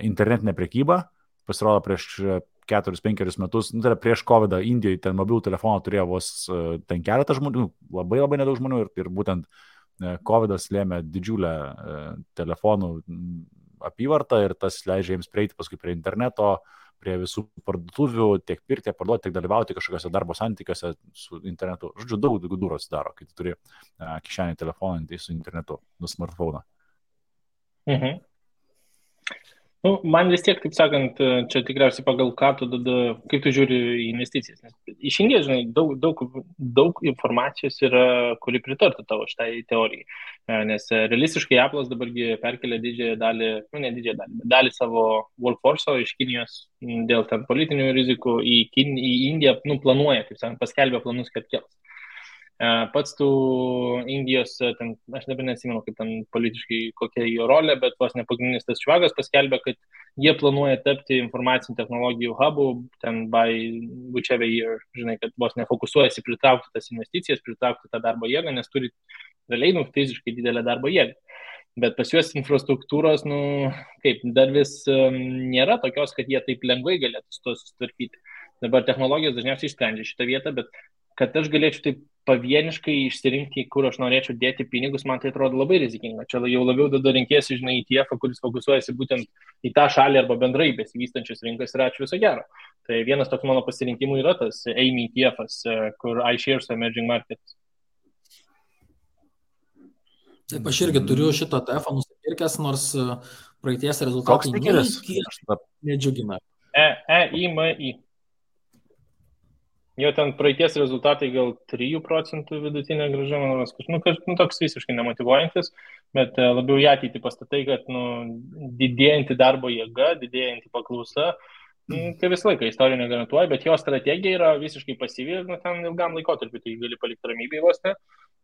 internetinė prekyba pasirodo prieš 4-5 metus, tai yra prieš COVID Indijoje ten mobilų telefoną turėjo vos ten keletą žmonių, labai nedaug žmonių ir būtent COVID'as lėmė didžiulę telefonų apyvartą ir tas leidžia jiems prieiti paskui prie interneto, prie visų parduotuvių, tiek pirkti, parduoti, tiek dalyvauti kažkokiuose darbo santykiuose su internetu. Žodžiu, daug durų atsidaro, kai tu turi kišenį telefoną su internetu, smartphone. Mhm. Man vis tiek, taip sakant, čia tikriausiai pagal ką tu kaip tu žiūri į investicijas. Nes iš Indijos, žinai, daug informacijos yra, kuri pritartų tavo šitai teorijai. Nes realistiškai Apple'as dabargi perkelia dalį savo workforce'o iš Kinijos dėl ten politinių rizikų į Indiją, planuoja, taip sakant, paskelbė planus, kad kels. Pats tų Indijos, ten, aš dabar nesimenu, kaip ten politiškai kokia jo rolė, bet vos nepagrindinis tas švagas paskelbė, kad jie planuoja tapti informacinių technologijų hubų, ten by whichever year, žinai, kad vos nefokusuojasi pritraukti tas investicijas, pritraukti tą darbo jėgą, nes turi realiai fiziškai didelę darbo jėgą. Bet pas juos infrastruktūros, dar vis nėra tokios, kad jie taip lengvai galėtų su to susitvarkyti. Dabar technologijos dažniausiai išsprendžia šitą vietą, bet kad aš galėčiau taip pavieniškai išsirinkti, kur aš norėčiau dėti pinigus, man tai atrodo labai rizikinga. Čia jau labiau rinkėsi, žinai, ETF, kuris fokusuojasi būtent į tą šalį arba bendrai besivystančias rinkas ir ačiū viso gero. Tai vienas toks mano pasirinkimų yra tas AIM ETF'as, kur iShares Emerging Markets. Taip, aš irgi turiu šitą ETF nusipirkęs, nors praeities rezultatai nedžiugina. EIMI. Jo ten praeities rezultatai gal 3% vidutinė grąža, toks visiškai nemotyvuojantis, bet labiau į ateitį pastatai, kad didėjanti darbo jėga, didėjanti paklausa, tai visą laiką istorija negarantuoja, bet jo strategija yra visiškai pasyvi ir ten ilgam laikotarpiu, tai gali palikti ramybėj vos ne.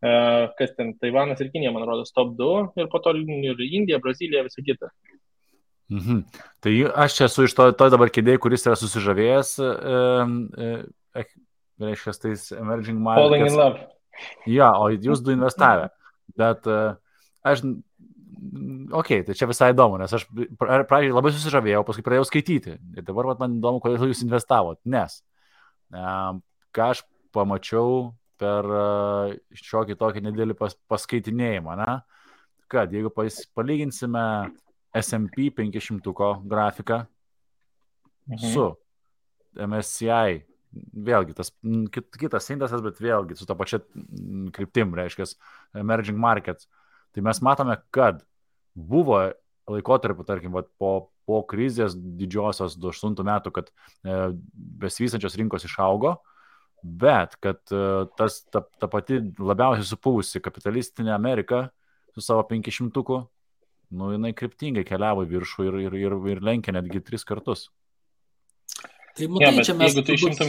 Kas ten, Taivanas ir Kinija, man rodos, top 2 ir po to ir Indija, Brazilija, visa kita. Tai aš čia esu iš to dabar kėdėjai, kuris yra susižavėjęs, reiškia, tais emerging markets. Falling in love. Ja, o jūs du investavę. Bet aš, tai čia visai įdomu, nes aš pradžiai labai susižavėjau, paskui pradėjau skaityti. Ir dabar man įdomu, kodėl jūs investavot. Nes ką aš pamačiau per šiokį tokį nedėlį paskaitinėjimą, ne? Kad jeigu palyginsime S&P 500 grafiką su MSCI, vėlgi tas kitas indeksas, bet vėlgi su ta pačia kryptim, reiškia, emerging markets, tai mes matome, kad buvo laikotarpiu, tarkim, po krizės didžiosios 2008 metų, kad besivystančios rinkos išaugo, bet kad ta pati labiausiai supuvusi kapitalistinė Amerika su savo 500-uku, jinai kryptingai keliavo į viršų ir lenkė netgi 3 kartus. Tai matai, čia mes... Jeigu tu išimtum...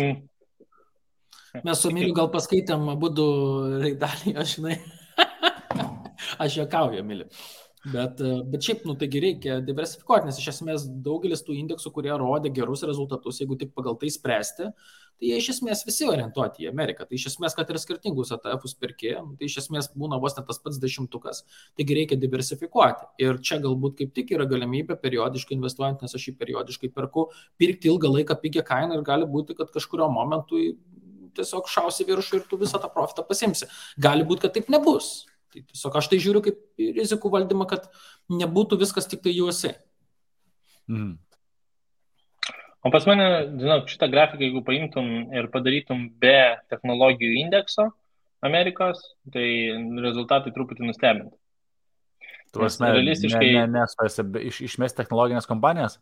Mes su Emiliu gal paskaitėm abudu raidalį, aš juokauju, Emiliu. Bet šiaip, taigi reikia diversifikuoti, nes iš esmės daugelis tų indeksų, kurie rodė gerus rezultatus, jeigu tik pagal tai spręsti, tai jie iš esmės visi orientuoti į Ameriką. Tai iš esmės, kad ir skirtingus ETF-us perki, tai iš esmės būna vos net tas pats 10-tukas, taigi reikia diversifikuoti. Ir čia galbūt kaip tik yra galimybė periodiškai investuojant, nes aš jį periodiškai perku, pirkti ilgą laiką pigią kainą ir gali būti, kad kažkurio momentu tiesiog šausi viršų ir tu visą tą profitą pasimsi. Gali būti, kad taip nebus. Tai tiesiog aš tai žiūriu kaip rizikų valdymą, kad nebūtų viskas tik tai juose. O pas mane, žinok, šitą grafiką, jeigu paimtum ir padarytum be technologijų indekso Amerikos, tai rezultatai truputį nustebintų. Tu realistiškai... Išmest technologinės kompanijas?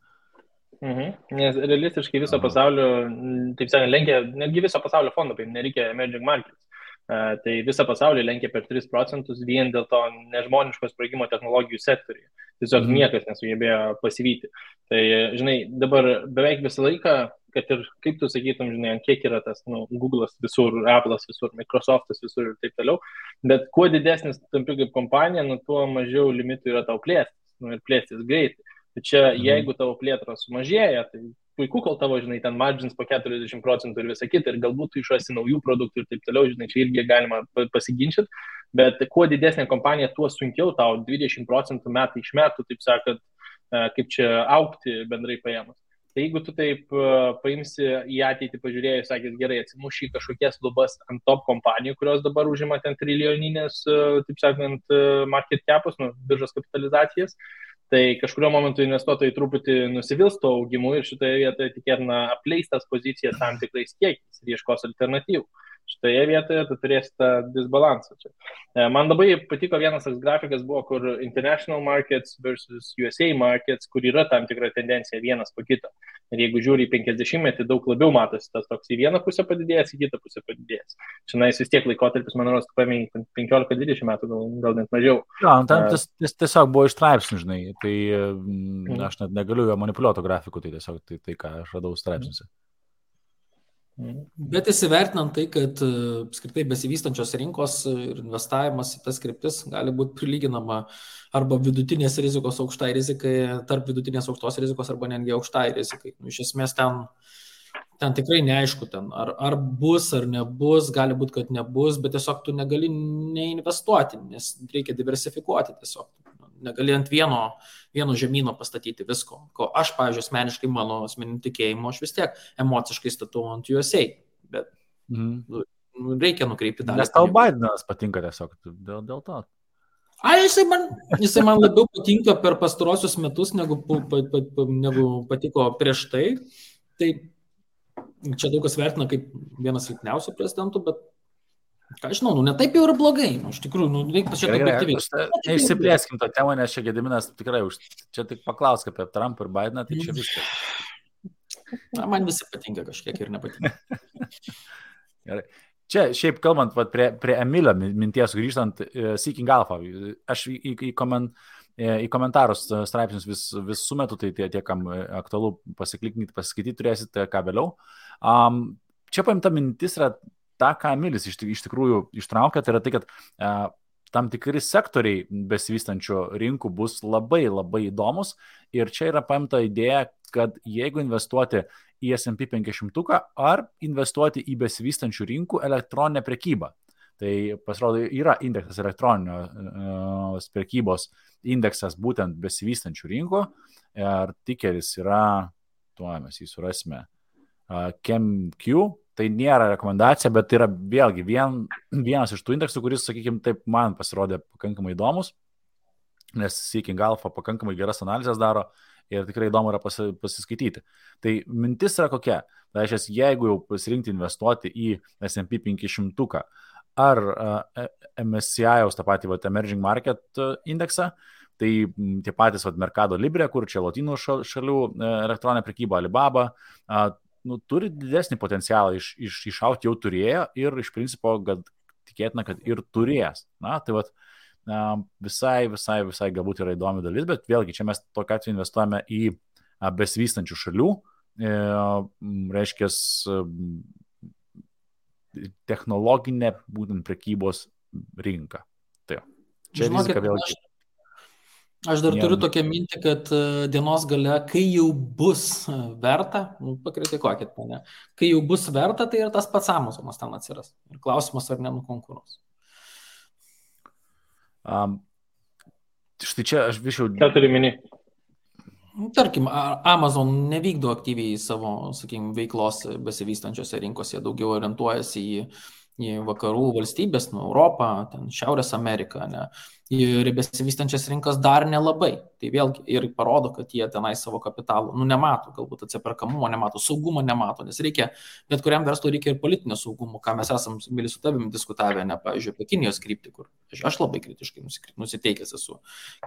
Nes realistiškai viso pasaulio, taip sakant, lenkia, netgi viso pasaulio fondo, nereikia emerging markets. Tai visą pasaulį lenkia per 3% vien dėl to nežmoniško sprogimo technologijų sektoriuje. Tiesiog niekas nesugebėjo pasivyti. Tai, žinai, dabar beveik visą laiką, kad ir kaip tu sakytum, žinai, kiek yra tas, Google'as visur, Apple'as visur, Microsoft'as visur ir taip toliau, bet kuo didesnis tampi kaip kompanija, tuo mažiau limitų yra tau plėstis, ir plėstis greitai. Tai čia, jeigu tavo plėtros sumažėja, tai puiku, kol tavo, žinai, ten margins po 40% ir visą kitą, ir galbūt tu išrasi naujų produktų ir taip toliau, žinai, čia irgi galima pasiginčyti, bet kuo didesnė kompanija, tuo sunkiau tau 20% metai iš metų, taip sakant, kaip čia augti bendrai paėmus. Tai jeigu tu taip paimsi į ateitį, pažiūrėjai, sakys, gerai, atsimuši kažkokias lubas ant top kompanijų, kurios dabar užima ten trilijoninės, taip sakant, market capus, biržos kapitalizacijas, tai kažkurio momentu investuotojai truputį nusivils to augimu ir šitoje vietoje tikėtina apleis tas pozicijas tam tikrais kiekiais ir ieškos alternatyvų. Šitoje vietoje tu turėsi tą disbalansą čia. Man labai patiko vienas toks grafikas buvo, kur international markets versus USA markets, kur yra tam tikra tendencija vienas po kito. Ir jeigu žiūri į 50-metį, daug labiau matosi tas toks į vieną pusę padidėjęs, į kitą pusę padidėjęs. Šiandien vis tiek laikotarpis, man rodos, paėmė 15-20 metų, gal net mažiau. Ja, ten tiesiog buvo iš straipsnių, žinai, tai aš net negaliu jo manipuliuoto grafikų, tai tiesiog tai ką aš radau straipsniuose. Bet įsivertinant tai, kad apskritai besivystančios rinkos ir investavimas į tas kryptis gali būti prilyginama arba vidutinės rizikos aukštai rizikai, tarp vidutinės aukštos rizikos arba netgi aukštai rizikai. Iš esmės ten tikrai neaišku, ar bus ar nebus, gali būti, kad nebus, bet tiesiog tu negali neinvestuoti, nes reikia diversifikuoti tiesiog. Negali ant vieno žemyno pastatyti visko. Ko aš, pavyzdžiui, asmeniškai mano asmeniniu tikėjimu, aš vis tiek emociškai statau ant USA, bet reikia nukreipti dalį. Nes tau Bidenas patinka tiesiog dėl to. Jisai man labiau patinka per pastarosius metus, negu patiko prieš tai. Tai čia daug kas vertina kaip vienas silpniausių prezidentų, bet ką žinau, ne taip jau yra blogai, iš tikrųjų, reikia čia objektyviai. Neišsiplėskim tą temą, nes čia Gediminas tikrai čia tik paklausk apie Trumpą ir Bideną, tai čia viskas. Man visi patinka kažkiek ir nepatinka. Gerai. Čia šiaip kalbant prie Emilio minties grįžtant, Seeking Alpha, aš į komentarus straipsnius vis sumetu, tai tie, kam aktualu pasikliknyti, pasiskaityti turėsite ką vėliau. Čia paimta mintis yra tą, ką Emilis iš tikrųjų ištraukia, tai yra tai, kad tam tikri sektoriai besivystančių rinkų bus labai labai įdomus ir čia yra paimta idėja, kad jeigu investuoti į S&P 500 ar investuoti į besivystančių rinkų elektroninę prekybą. Tai pasirodo yra indeksas elektroninės prekybos indeksas būtent besivystančių rinkų ir tikeris yra, tuo mes jį surasime, ChemQ. Tai nėra rekomendacija, bet tai yra vėlgi vienas iš tų indeksų, kuris, sakykime, taip man pasirodė pakankamai įdomus, nes Seeking Alpha pakankamai geras analizės daro ir tikrai įdomu yra pasiskaityti. Tai mintis yra kokia? Tai reiškia, jeigu jau pasirinkti investuoti į S&P 500 ar MSCI, tą patį Emerging Market indeksą, tai tie patys Mercado Libre, kur čia Lotynų šalių elektroninė prekyba, Alibaba, turi didesnį potencialą išauti, jau turėjo ir iš principo, kad tikėtina, kad ir turės. Na, tai visai galbūt yra įdomi dalis, bet vėlgi čia mes tokiu atveju investuojame į besivystančių šalių, reiškia technologinę būtent prekybos rinką. Tai čia rizika vėlgi. Aš dar turiu tokią mintį, kad dienos gale, kai jau bus verta, pakritikuokit mane, kai jau bus verta, tai ir tas pats Amazonas ten atsiras. Ir klausimas, ar nenukonkuruos. Štai čia aš višiau... Ką turi mini? Tarkim, Amazon nevykdo aktyviai savo, sakykime, veiklos besivystančiose rinkose, daugiau orientuojasi į vakarų valstybės, Europą, ten Šiaurės Ameriką, ne? Ir besivystančias rinkas dar nelabai. Tai vėlgi ir parodo, kad jie tenai savo kapitalų, nemato, galbūt atsiperkamumo nemato, saugumo nemato, nes reikia, bet kuriam verslui reikia ir politinio saugumo, ką mes esam su tavim diskutavę, ne, pavyzdžiui, apie Kinijos kryptį, kur aš labai kritiškai nusiteikęs esu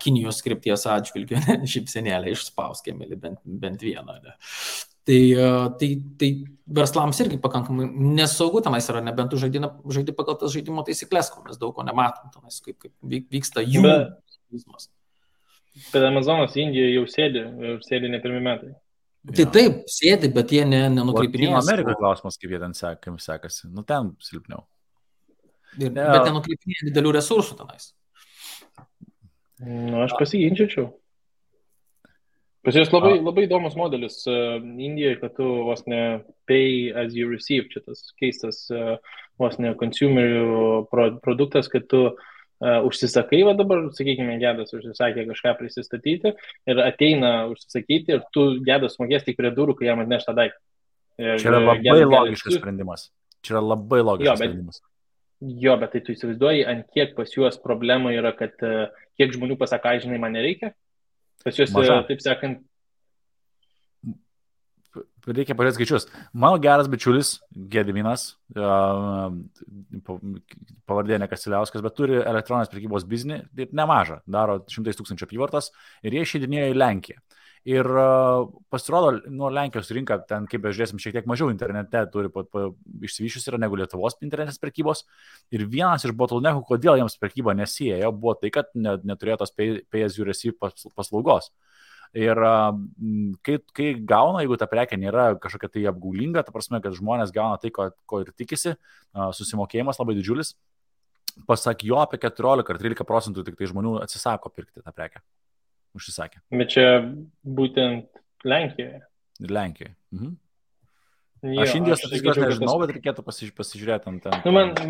Kinijos krypties atžvilgiu, šypsenėlę išspauskėme bent vieną. Ne. Tai verslams irgi pakankamai nesaugu tenais yra, nebent tu žaidi pagal tas žaidimo taisyklės, ko mes daug ko nematom tenais, kaip vyksta jų vizmas. Bet Amazonas Indijoje jau sėdi ne pirmi metai. Tai taip, sėdi, bet jie nenukreipinėja. Amerikoje klausimas, kaip jie ten sekasi. Ten silpniau. Bet nenukreipinėja didelių resursų tenais. Aš pasiginčiau. Pas jos labai įdomus modelis Indijoje, kad tu vos ne pay as you receive, čia tas keistas vos ne consumer produktas, kad tu užsisakai, va dabar, sakykime, Gedas užsisakė kažką prisistatyti ir ateina užsisakyti ir tu Gedas mokės tik prie durų, kai jam atneš tą daiktą. Čia yra labai logiškas sprendimas. Sprendimas. Jo, bet tai tu įsivaizduoji, ant kiek pas juos problema yra, kad kiek žmonių pasaka, žinai, man nereikia. Pas juos, taip sakant... Reikia pažiūrėti skaičius. Mano geras bičiulis, Gediminas, pavardė Nekasiliauskas, bet turi elektroninės prekybos biznį, nemažą, daro 100 000 apyvartos ir jie išeidinėjo į Lenkiją. Ir pasirodo, nuo Lenkijos rinka, ten, kaip bežiūrėsim, šiek tiek mažiau internete turi išsivyščius yra negu Lietuvos internetinės prekybos. Ir vienas iš bottleneckų, kodėl jiems prekyba nesiejo, buvo tai, kad neturėjo tos pay as you receive paslaugos. Ir kai gauna, jeigu ta prekė nėra kažkokia tai apgaulinga, ta prasme, kad žmonės gauna tai, ko ir tikisi, susimokėjimas labai didžiulis, pasak jo apie 14 ar 13% tik tai žmonių atsisako pirkti tą prekę. Užsisakė. Bet čia būtent Lenkijoje. Lenkijoje. Aš Indijos statistikos nežinau, bet reikėtų pasižiūrėti ant ten.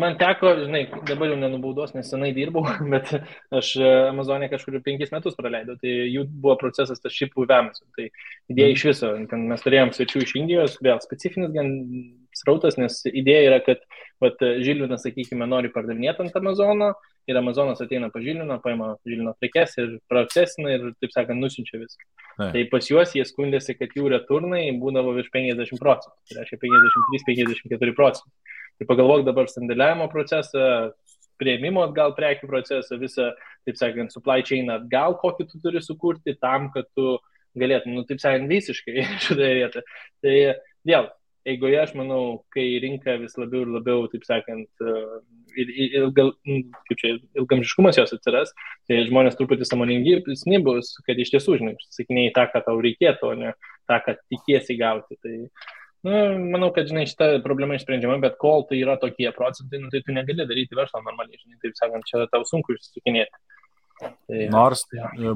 Man teko, žinai, dabar jau nenubaudos, nes senai dirbau, bet aš Amazonė kažkur 5 metus praleidau, tai jų buvo procesas tas šipų įvėmis. Tai idėja iš viso, ten mes turėjom svečių iš Indijos, vėl specifinis gan srautas, nes idėja yra, kad Žilvinas, sakykime, nori pardavinėti ant Amazono ir Amazonas ateina pa Žilviną, paima Žilvino prekes ir procesina ir, taip sakant, nusiunčia viską. Tai pas juos jie skundėsi, kad jų returnai būdavo virš 50%, tai reiškia 53-54%. Tai pagalvok dabar sandėliavimo procesą, prieimimo atgal prekių procesą, visą, taip sakant, supply chain atgal, kokį tu turi sukurti tam, kad tu galėtum, taip sakant, visiškai šitoje vietoje. Tai vėl, eigoje, aš manau, kai rinka vis labiau ir labiau, taip sakant, ilgamžiškumas jos atsiras, tai žmonės truputį sąmoningesni bus, kad iš tiesų, žinai, sakinėjai tą, ką tau reikėtų, o ne tą, ką tikiesi gauti. Tai Manau, kad, žinai, šita problema išsprendžiama, bet kol tai yra tokie procentai, tai tu negali daryti verslo normaliai, žinai, taip sakant, čia tau sunku išsisukinėti. Nors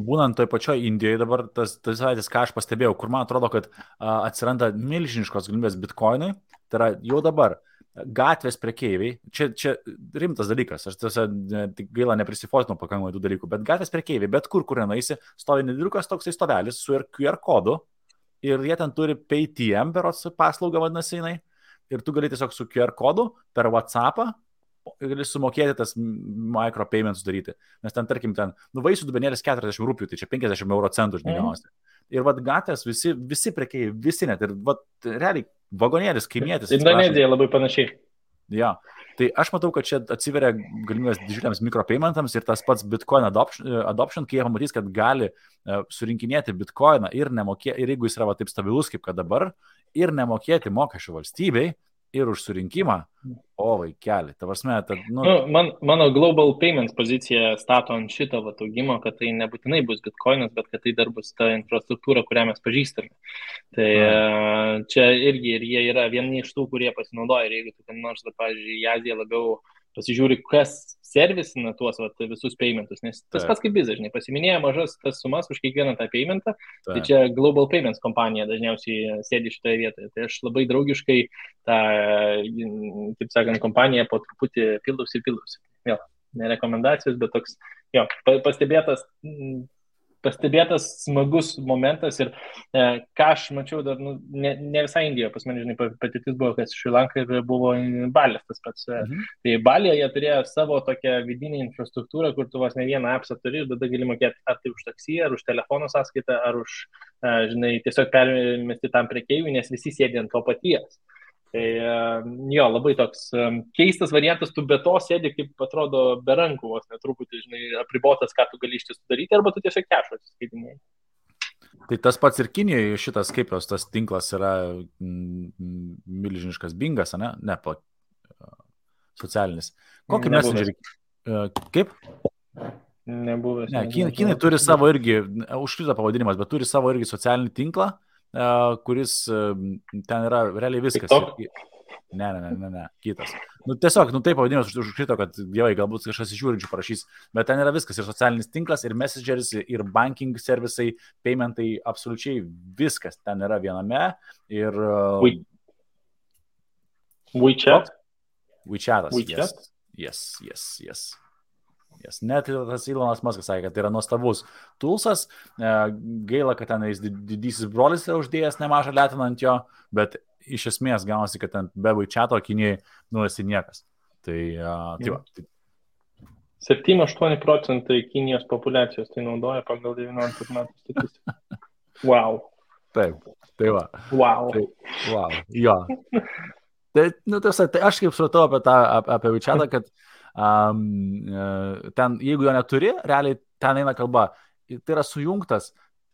būnant toj pačioj Indijoje dabar, tas savaitės, ką aš pastebėjau, kur man atrodo, kad atsiranda milžiniškos galimybės bitkoinui, tai yra jau dabar gatvės prekeiviai, čia rimtas dalykas, aš tiesa gaila neprisifotinu pakankamai tų dalykų, bet gatvės prekeiviai, bet kur nenaisi, stovi nedėliukas toksai stovelis su QR kodu ir jie ten turi PayTM berods paslaugą vadinasi jinai ir tu gali tiesiog su QR kodu per WhatsAppą gali sumokėti tas micropayments daryti, nes ten, tarkim, vaisių dubenėlis 40 rūpių, tai čia 50 euro centų žiniausiai. Ir vat gatvės visi prekeiviai, visi net, ir vat realiai vagonėlis, kaimietis. Indonezija labai panašiai. Ja, tai aš matau, kad čia atsiveria galimybės didžiuliams mikropaymentams ir tas pats Bitcoin adoption, kai jie pamatys, kad gali surinkinėti Bitcoiną ir jeigu jis yra taip stabilus kaip kad dabar, ir nemokėti mokesčių valstybei, ir už surinkimą, o vaikeli, ta prasme, mano Global Payments pozicija stato ant šito augimo, kad tai nebūtinai bus Bitcoinas, bet kad tai dar bus ta infrastruktūra, kurią mes pažįstame. Tai čia irgi ir jie yra vieni iš tų, kurie pasinaudoja, ir jeigu tu ten nors, pavyzdžiui, į Aziją labiau pasižiūri, kas servisina tuos visus paymentus, nes tas pats kaip bizas, žinai, pasiminėja mažas tas sumas už kiekvieną tą paymentą, tai čia Global Payments kompanija dažniausiai sėdi šitoje vietoje. Tai aš labai draugiškai tą, taip sakant, kompaniją po truputį pildausi. Vėl, ne rekomendacijos, bet toks, jo, pastebėtas smagus momentas ir ką aš mačiau dar, ne visai Indijoje, pas mane, žinai, patirtis buvo, kas Šri Lanka ir buvo Balis tas pats. Tai Balyje jie turėjo savo tokią vidinę infrastruktūrą, kur tu vos ne vieną appsą turi ir tada gali mokėti ar tai už taksį, ar už telefono sąskaitą, ar už, žinai, tiesiog permesti tam prekeiviui, nes visi sėdi ant to paties. Tai jo, labai toks keistas variantas, tu be to sėdi, kaip atrodo, be rankų, vos netruputį, žinai, apribotas, ką tu gali iš tiesų daryti, arba tu tiesiog kešo atsiskaitinėjai. Tai tas pats ir Kinijoje šitas, kaip jos tas tinklas yra milžiniškas bingas, ne? Ne, socialinis. Kokį messengerį? Kaip? Nebuvęs. Ne, Kinai turi savo irgi, užkrito pavadinimas, bet turi savo irgi socialinį tinklą, kuris ten yra realiai viskas. Ne, kitas. Tiesiog, taip pavadinimas užkrito, kad dievai, galbūt kažkas iš žiūrinčių parašys, bet ten yra viskas, ir socialinis tinklas, ir messengeris, ir banking servisai, paymentai, absoliučiai viskas ten yra viename. Ir WeChat? WeChatas, yes. Net tas Elonas Muskas sakė, kad tai yra nuostabus toolsas, gaila, kad ten didysis brolis yra uždėjęs nemažą letiną ant jo, bet iš esmės gaunasi, kad ten be WeChato Kinijai esi niekas. Tai va. 7-8% Kinijos populiacijos tai naudoja pagal 19 metų statistiką. Wow. Taip, tai va. Wow. Wow, jo. Tai aš kaip supratau apie WeChatą, kad ten, jeigu jo neturi, realiai ten eina kalba, tai yra sujungtas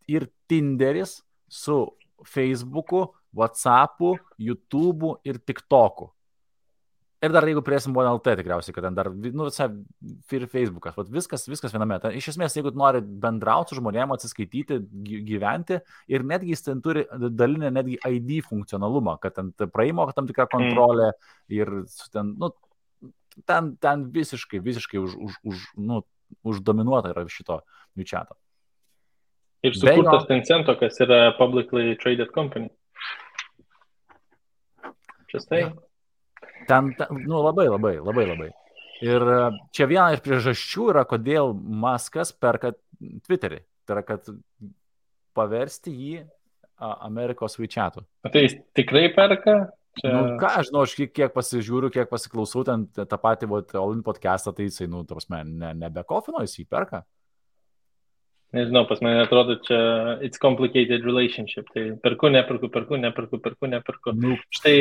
ir Tinderis su Facebooku, WhatsAppu, YouTube'u ir TikTok'u. Ir dar jeigu priesim BNLT tikriausiai, kad ten dar, visai ir Facebookas, viskas viename. Ten, iš esmės, jeigu nori bendrauti su žmonėm, atsiskaityti, gyventi, ir netgi jis ten turi dalinę netgi ID funkcionalumą, kad ten praeimo tam tikrą kontrolę ir ten visiškai uždominuota yra šito WeChat'o. Ir sukurtas Tencento, kas yra publicly traded company. Čia ten, labai. Ir čia viena iš priežasčių yra, kodėl Muskas perka Twitterį. Tai yra, kad paversti jį Amerikos WeChat'u. Tai jis tikrai perka? Ką aš žinau, aš kiek pasižiūriu, kiek pasiklausau, ten tą patį All-in podcastą, tai jisai, nebekofino, jis jį perka. Nežinau, pas mane atrodo, čia it's complicated relationship, tai perku. Štai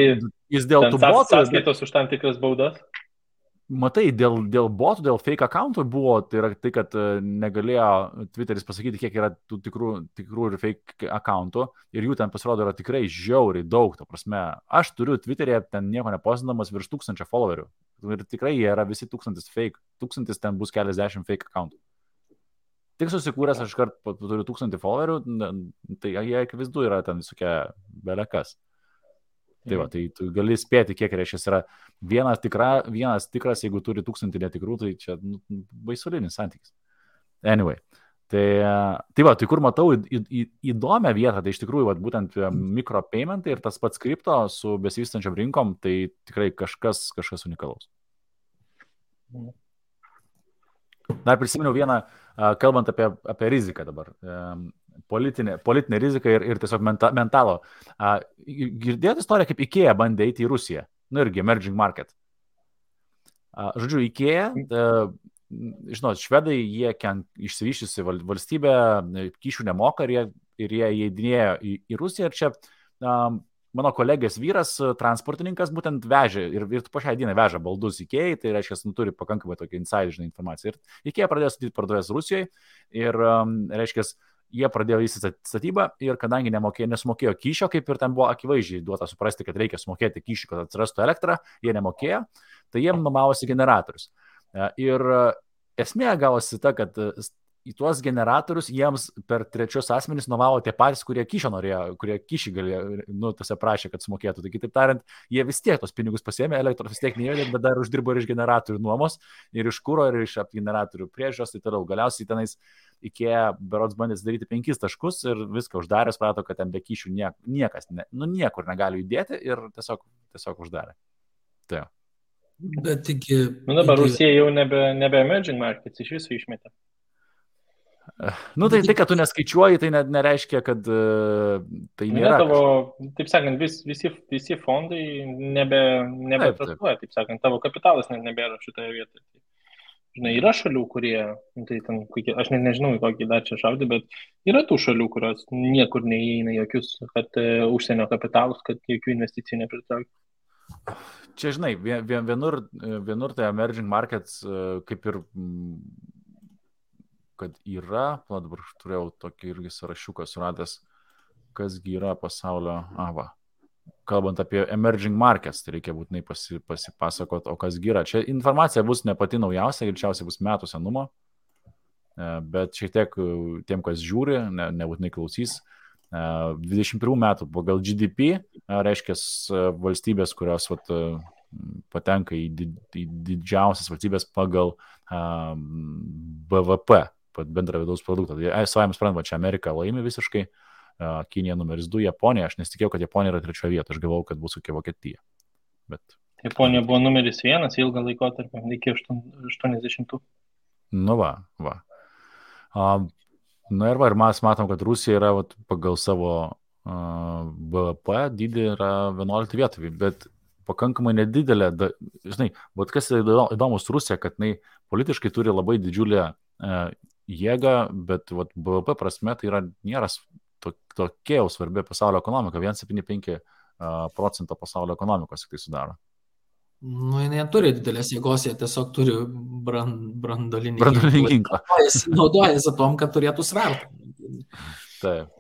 jis dėl tų botų. Sąskaitos už tam tikras baudas. Matai, dėl botų, dėl fake accountų buvo, tai yra tai, kad negalėjo Twitteris pasakyti, kiek yra tų tikrų ir fake accountų, ir jų ten pasirodo yra tikrai žiauriai daug, ta prasme. Aš turiu Twitter'e ten nieko neposindamas virš 1000 followerių, ir tikrai jie yra visi 1000 fake, 1000 ten bus keliasdešimt fake accountų. Tik susikūręs aš kart turiu 1000 followerių, tai jie akivaizdu yra ten visokia belekas. Tai va, tai tu gali spėti, kiek reiškia yra vienas tikras, jeigu turi 1000 netikrų, tai čia baisulinis santykis. Anyway. Tai va, tai kur matau įdomią vietą, tai iš tikrųjų va, būtent mikropaymentai ir tas pats kripto su besivystančiam rinkom, tai tikrai kažkas unikalaus. Dar prisiminiau vieną, kalbant apie riziką dabar, politinę riziką ir tiesiog mentalo. Girdėjote istoriją, kaip IKEA bandė eiti į Rusiją, irgi emerging market. Žodžiu, IKEA, žinot, švedai, jie išsivyščiusi valstybė, kyšių nemoka ir jie įeidinėjo į Rusiją. Ir čia mano kolegės vyras, transportininkas, būtent vežė ir po šią dieną veža baldus IKEA, tai reiškia, turi pakankamai tokią insideržinę informaciją. Ir IKEA pradėjo statyti parduotuvės Rusijoje ir, reiškia, jie pradėjo vystyti statybą ir kadangi nesumokėjo kyšio, kaip ir ten buvo akivaizdžiai duota suprasti, kad reikia sumokėti kyšį, kad atsirastų elektrą, jie nemokėjo, tai jiem nuomavosi generatorius. Ir esmė gavosi ta, kad į tuos generatorius jiems per trečius asmenys nuomavo tie patys, kurie kyšio norėjo, kurie kyšį galėjo, tose prašė, kad sumokėtų. Tai kitaip tariant, jie vis tiek tos pinigus pasiėmė, elektros vis tiek neįvedė, bet dar uždirbo ir iš generatorių nuomos, ir iš kuro, ir iš generatorių priežiūros, tai toliau. Galiausiai tenais IKEA berods bandė daryti 5 taškus ir viską uždarė, suprato, kad ten be kyšių niekas, niekur negali judėti ir tiesiog uždarė. Tai. Bet iki... dabar Rusija jau nebe emerging markets, iš viso išmetė. Tai, kad tu neskaičiuoji, tai nereiškia, kad tai nėra. Tavo, taip sakant, visi fondai nebetraktuoja, taip sakant, tavo kapitalas nebėra šitoje vietoje. Žinai, yra šalių, kurie, tai ten, aš nežinau, į kokį dar čia šaudį, bet yra tų šalių, kurios niekur neįeina jokius, kad užsienio kapitalus, kad jokių investicijų nepritrauktų. Čia, žinai, vienur tai emerging markets kaip ir, kad yra, dabar turėjau tokį irgi sąrašiuką suradęs, kasgi yra pasaulio, kalbant apie emerging markets, tai reikia būtinai pasipasakot, o kasgi yra. Čia informacija bus ne pati naujausia, greičiausiai bus metų senumo, bet šiek tiek tiem, kas žiūri, nebūtinai klausys. 21 metų pagal GDP, reiškia valstybės, kurios patenka į didžiausias valstybės pagal BVP, bendrą vidaus produktą. Tai savai suprantama, čia Amerika laimi visiškai, Kinija numeris 2, Japonija. Aš nesitikėjau, kad Japonija yra 3 vieta, aš galvojau, kad bus kokia Vokietija. Bet... Japonija buvo numeris 1 ilgą laikotarpį, iki 80. Va. Ir mes matom, kad Rusija yra pagal savo BVP dydį yra 11 vietą, bet pakankamai nedidelė. Žinai, kas įdomus Rusija, kad jinai politiškai turi labai didžiulę jėgą, bet BVP prasme tai nėra tokia jau svarbi pasaulio ekonomika, 1,75% pasaulio ekonomikos tai sudaro. Jie turi didelės jėgos, jie tiesiog turi branduolinį ginklą. Jis naudojasi tom, kad turėtų svertą. Taip.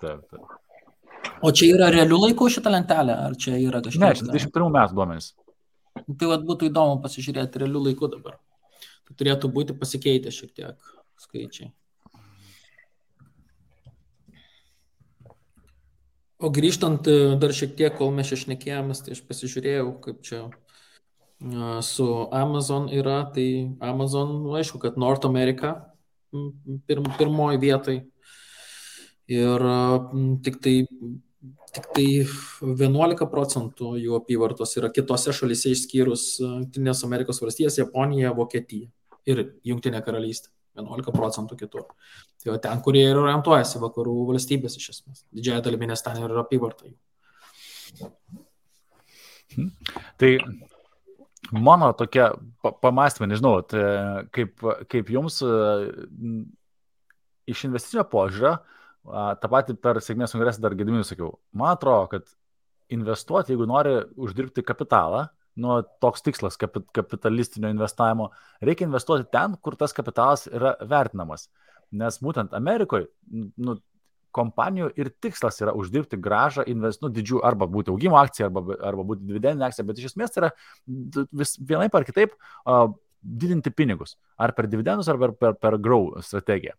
O čia yra realių laikų šitą lentelę, ar čia yra kažkas? Ne, čia 21 metų duomenys. Tai būtų įdomu pasižiūrėti realių laikų dabar. Tai turėtų būti pasikeitę šiek tiek skaičiai. O grįžtant dar šiek tiek, kol mes čia šnekėjomės, tai aš pasižiūrėjau, kaip čia su Amazon yra, tai Amazon, aišku, kad North America pirmoji vietai ir tik tai 11% jų apyvartos yra kitose šalyse išskyrus Jungtinės Amerikos valstijas, Japonija, Vokietija ir Jungtinė karalystė. 11% kitur. Tai ten, kurie ir orientuojasi vakarų valstybės iš esmės. Didžiąją dalimi, nes ten yra apyvarta jų. Tai mano tokia pamastymė, nežinau, kaip jums iš investicinio požiūrio, tą patį per sėkmės kongresą dar Gediminui sakiau, man atrodo, kad investuoti, jeigu nori uždirbti kapitalą, toks tikslas kapitalistinio investavimo, reikia investuoti ten, kur tas kapitalas yra vertinamas. Nes būtent Amerikoje kompanijų ir tikslas yra uždirbti gražą, didžių, arba būti augimo akcija, arba būti dividendinė akcija, bet iš esmės yra vienaip ar kitaip didinti pinigus. Ar per dividendus, ar per grow strategiją.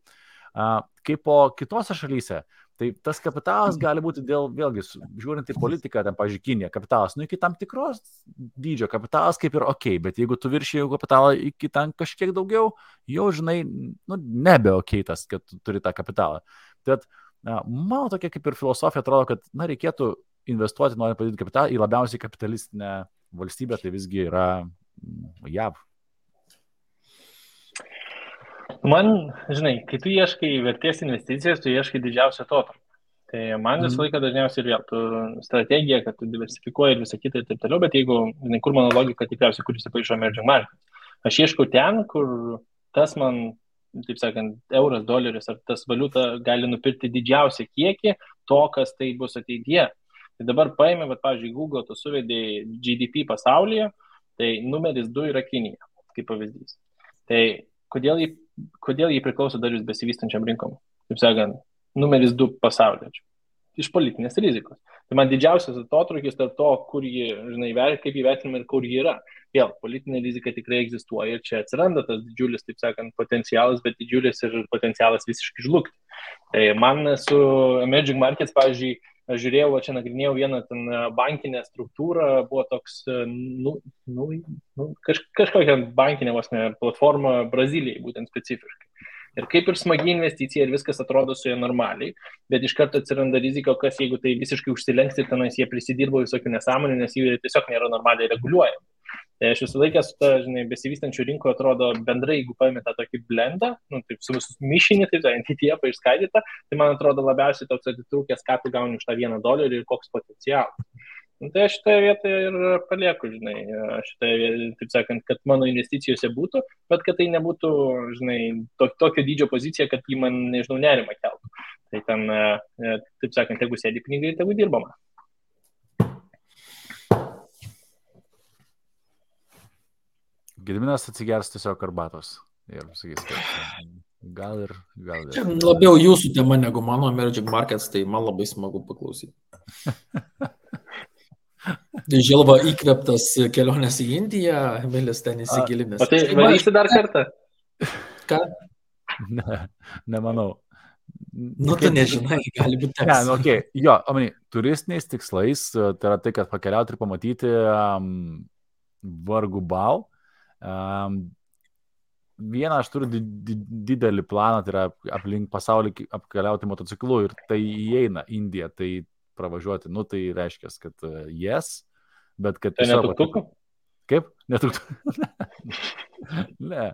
Kaip po kitose šalyse. Tai tas kapitalas gali būti vėlgi, žiūrint į politiką, ten, pavyzdžiui, Kinija, kapitalas, iki tam tikros dydžio kapitalas kaip ir ok, bet jeigu tu viršiji kapitalą iki ten kažkiek daugiau, jau, žinai, nebe ok tas, kad tu turi tą kapitalą. Tad mano tokia kaip ir filosofija atrodo, kad, reikėtų investuoti, norint padidinti kapitalą į labiausiai kapitalistinę valstybę, tai visgi yra JAV. Man, žinai, kai tu ieškai vertės investicijas, tu ieškai didžiausio atotrukio. Tai man visą laiką dažniausiai ir vėl, tu strategija, kad tu diversifikuoji ir visą kitą ir taip toliau, bet jeigu, žinai, kur mano logika tikriausiai, kur įsipaišo emerging markets. Aš ieškau ten, kur tas man, taip sakant, euras, doleris ar tas valiuta gali nupirkti didžiausią kiekį to, kas tai bus ateityje. Tai dabar paėmė, pavyzdžiui, Google, tu suvedėjai GDP pasaulyje, tai numeris 2 yra Kinija, kaip pavyzdys. Tai kodėl jį priklauso dar jūs besivystančiam rinkom? Taip sakant, numeris 2 pasaulyje. Iš politinės rizikos. Tai man didžiausias atotrukis tarp to, kur jį, žinai, kaip įvertinama ir kur jį yra. Vėl, politinė rizika tikrai egzistuoja ir čia atsiranda tas didžiulis, taip sakant, potencialas, bet didžiulis ir potencialas visiškai žlugti. Tai man su emerging markets, pavyzdžiui, aš žiūrėjau, čia nagrinėjau vieną ten bankinę struktūrą, buvo toks, kažkokia bankinė platforma Brazilijai, būtent specifiškai. Ir kaip ir smagi investicija ir viskas atrodo su jie normaliai, bet iš karto atsiranda rizika, kas jeigu tai visiškai užsilenks ir tenais jie prisidirbo visokių nesąmonių, nes jie tiesiog nėra normaliai reguliuojami. Tai aš visą laiką su ta, žinai, besivystančių rinko atrodo bendrai, jeigu paėmė tą tokį blendą, taip su visus mišinį, taip ETF išskaidytą, tai man atrodo labiausiai toks atitrūkęs, ką tu gauni už tą $1 ir koks potencialas. Tai aš šitoje vietoje ir palieku, žinai, šitoje, taip sakant, kad mano investicijose būtų, bet kad tai nebūtų, žinai, tokio dydžio pozicija, kad jį man, nežinau, nerimą keltų. Tai ten, taip sakant, jeigu sėdi pinigai, tegu dirbama. Gediminas atsigers tiesiog arbatos ir sakys, kad gal ir. Čia labiau jūsų tema negu mano emerging markets, tai man labai smagu paklausyti. Tai Žilva įkvėptas kelionės į Indiją, Emilis ten įsigilinęs. O tai varysi dar kartą? Ką? Nemanau. Tu nežinai, gali būti teks. Okay. Jo, turistiniais tikslais, tai yra tai, kad pakeliauti ir pamatyti vargu bau. Vieną aš turiu didelį planą, tai yra aplink pasaulį apkeliauti motociklu ir tai įeina Indija, tai pravažiuoti, tai reiškia, kad yes, bet kad... Tai netuktukų? Kaip? Netuktukų? Ne.